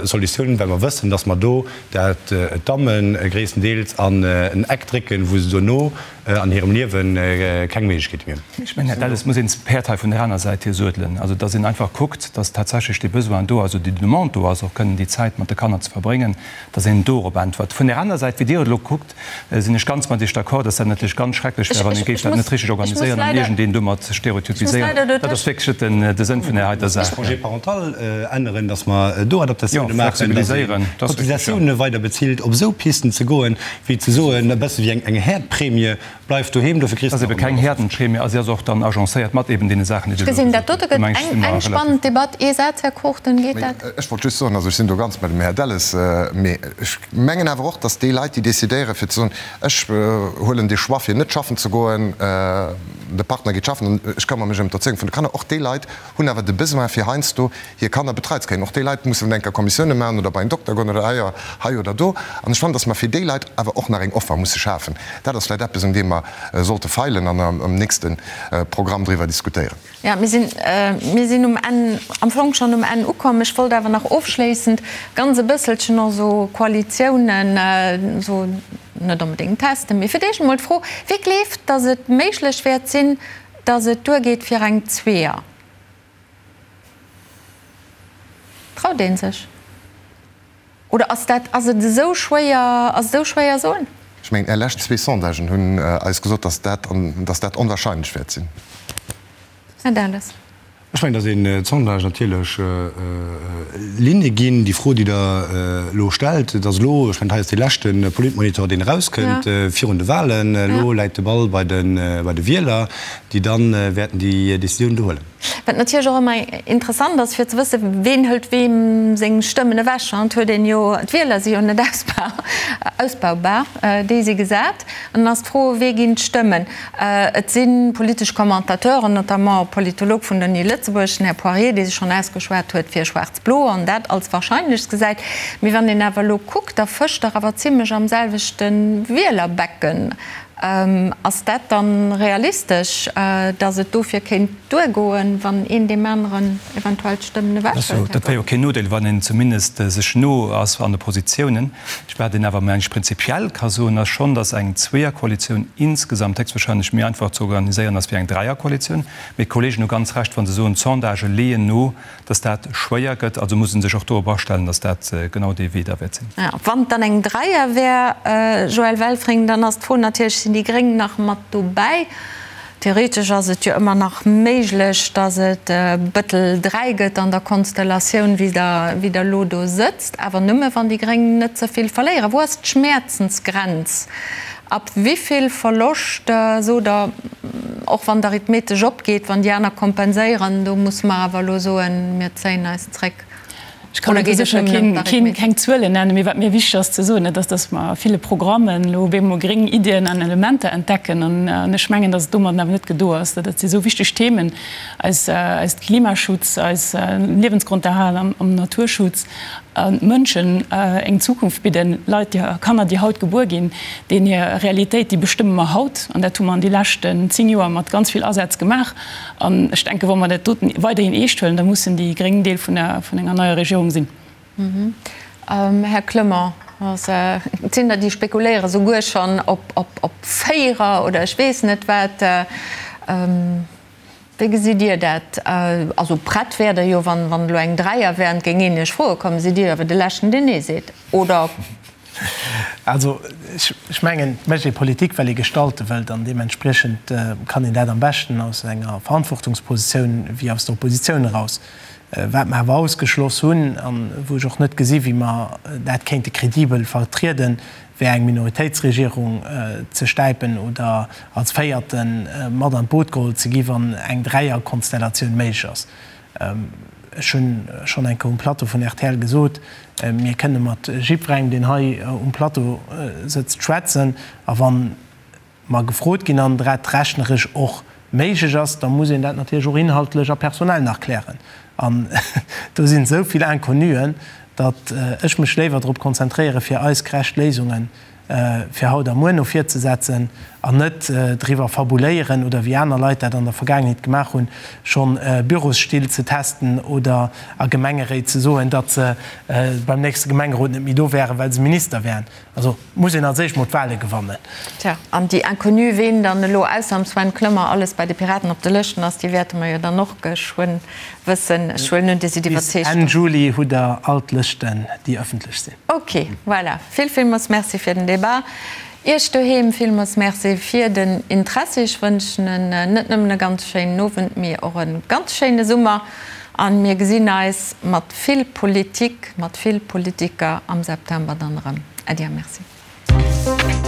Solutioun, well mer wëssen, dass mer do dat d'Damme gréisstendeels an en Eck drécken, wou se dono an hirem Liewe keng Méiglechkeete méi hunn. Ech mengen, Här Delles, muss een d'Päerd hei vun där aner Säit hier suedelen. Also, dass een einfach kuckt, dass tatsächlech dee Besoin do ass oder déi Demande do ass, och kënnen déi Zäit mat de Kanner ze verbréngen, dass een dorop äntwert. Vun där aner Säit, wéi Dir et elo kuckt, sinn ech ganz mat Iech d'accord, dass dat natierlech ganz schrecklech wär, wann ee géif dat net richteg organiséieren an iergendeen domat stereotypiséieren. Dat ass wierklech net de Sënn vun där heiter Saach. Congé parental änneren, dass mer do Adaptatioune maachen, dass een d'Cotisatioune weider bezilt, op esou Pisten ze goen, Wéi ze soen, e bësse wéi eng Häerdprämie, bleif doheem, dofir kriss de. Ass ebe keng Häerdenprämie a si ass och dann agencéiert mat eben deene Saachen, déi Dir elo gesot hutt. Do meng ech, si mer eng spannend Debatt. Ee Saz, Här Cruchten, geet dat? Ech wollt just soen, also ech sinn do ganz bei dem Här Delles, mee ech mengen awer och, datt déi Leit, déi decidéieren, fir ze soen, ech huelen dee Choix fir net schaffen ze goen, de Partner geet schaffen an ech këmmere mech ëm d'Erzéiung vun de Kanner, och déi Leit hunn awer de Besoin fir heiansdo hir Kanner betreit ze kréien. Och déi Leit mussen enker Kommissioune maachen oder bei en Dokter goen oder hei hei oder do. An ech fannen, dass mer fir déi Leit awer och nach eng Offer musse schafen. Dat ass vläicht eppes, un deem mer sollte feilen an am nächste Programm driwwer diskutéieren. Jo, mir sinn, mir sinn um Enn, am Fong schonn um Enn ukomm. Ech wollt awer nach ofschléissend ganz e bësselchen och esou Koalitiounen esou net onbedéngt testen, mee fir d'éischt emol d'Fro, Wie gleeft, dass et méiglech wäert sinn, dass et duergeet fir eng Zweeër? Traut ee sech? Oder ass dat, ass et esou schwéier, ass et esou schwéier soen? Ech mengen, Är lescht zwee Sondagen hunn eis gesot, dass dat, dass dat onwahrscheinlech wäert sinn. Här Delles. Ech mengen, dass een d'Sondage natierlech Linne ginn. Déi Fro, déi Der elo stellt, et ass elo, ech mengen, hei ass dee leschte Politmonitor, deen erauskënnt virun de Wahlen. Elo läit de Ball bei de, bei de Wieler, déi da wäerten déi Décisioun do huelen. Wat natierlech och ëmmer interessant ass, fir ze wëssen, ween hëlt weem seng Stëmmen ewech. Et huet een jo, d'Wieler si jo net ausbaubar, déi si gesat. An dann ass d'Fro, wee ginn d'Stëmmen? Et si politesch Commentateuren, notamment e Politolog vun der Uni Lëtzebuerg, den Här Poirier, dee sech schonn ausgeschwat huet fir Schwaarz-Blo an dat als wahrscheinlechst gesäit. Mee wann een awer elo kuckt, da fëscht der awer zimlech am selwechte Wielerbecken. Ass dat dann realistesch, datt et dofir kéint duergoen, wann een deem aneren eventuell d'Stëmmen ewechhëlt? Dat wär jo keen Nodeel, wann een zumindest sech no ass an de Positiounen. Wat een awer, meng ech, prinzipiell ka soen, ass schonn, datt eng Zweeërkoalitioun insgesamt héchstwahrscheinlech méi einfach ze organiséieren ass wéi eng Dräierkoalitioun. Mee d'Kollegen hu ganz Recht, wa se soen, d'Sondagë leeën no, dass dat schwéier gëtt. Also muss ee sech och dorop astellen, dass dat genau dee Wee da wäert sinn. Wann et dann eng Dräier wär, Joël Welfring, dann ass d'Fro natierlech, Sinn déi Gréng nach mat dobäi? Theoretesch ass et jo ëmmer nach méiglech, dass et Bëttel 3 gëtt an der Konstellatioun, wéi Der elo do sëtzt, awer nëmme wann déi Gréng net ze vill verléieren. Wou ass d'Schmäerzensgrenz? Ab wivill Verloscht sot Der, och wann d'Arithmetesch opgeet, wann déi aner kompenséieren, do musse mer awer elo soen, mir zéien eis zréck? Ech kann do sécher keng Zuelen nennen, mee wat mir wichteg ass ze soen, dat ass, datt mer a ville Programmen elo op eemol gréng Iddien an Elementer entdecken. An ech mengen, datt et domadden awer net gedo ass. Dat si esou wichteg Themen, eis Klimaschutz, eis Liewensgronderhal am Naturschutz. Mënschen eng Zukunft bidden, Leit, déi, Kanner, déi haut gebuer ginn, deenen hir Realitéit, déi bestëmme mer haut. An dat hu mer an déi leschten 10 Joer mat ganz vill Asaz gemaach. An ech denken, wa mer dat doten weiderhin eescht huelen, da mussen déi Gréng Deel vun der, vun enger neier Regierung sinn. Här Clement, et sinn der, déi spekuléiere souguer schonn op, op, op Véierer oder ech weess net wat. Wéi gesitt Dir dat? Also prett wäert Der jo, wann elo eng Dräier wär an et géing een Iech froe kommen, sidd Dir jo awer de Leschten, deen Nee seet, oder? Also ech mengen, et mécht ee Politik, well ee gestalte wëllt an deementspriechend kann een dat am beschten aus enger Verantwortungspositioun wéi aus der Oppositioun eraus. Wat mer awer ausgeschloss hunn a wou ech och net gesi wéi mer dat kéinte kredibel vertrieden, wär eng Minoritéitsregierung ze stäipen oder als Véierte mat an d'Boot geholl ze gi wann eng Dräierkonstellatioun méiglech ass. Ech hu schonn eng Kéier um Plateau vun rtl gesot, mir kënne mat jiddwerengem, deen hei um Plateau sëtzt, schwätzen a wann mer gefrot ginn an dat rechneresch och méiglech ass, da muss een dat natierlech och inhaltlech a personell nach klären. An do sinn esou vill Inconnuen, datt ech mech léiwer drop konzentréiere fir eis gerecht Léisunge fir haut a muer no vir ze setzen an net driwwer fabuléieren oder wéi aner Leit dat an der Vergaangenheet gemaach hunn, schonn Bürosstill ze testen oder a Gemengeréit ze soen, datt se beim nächste Gemengerot net méi do wären, well se Minister wären. Also muss een als éischt mol d'Wahle gewannen. Tja, an déi Inconnue, ween dann elo ausser dem Sven Clement alles bei de Piraten op de Lëschten ass, déi wäerte mer jo dann och geschwënn wëssen. Ech huelen un, Dir sidd Bis iwwerzeegt. Enn Juli hutt Der all d'Lëschten, déi ëffentlech sinn. Ok, voilà. Vill, villmools Merci fir den Debat. Iech doheem villmools Merci fir den Interessi. Ech wënschen en net nëmmen e ganz schéinen Owend, mee och e ganz schéine Summer. A mir gesinn eis mat vill Politik, mat vill Politiker am September dann erëm. Äddi a Merci.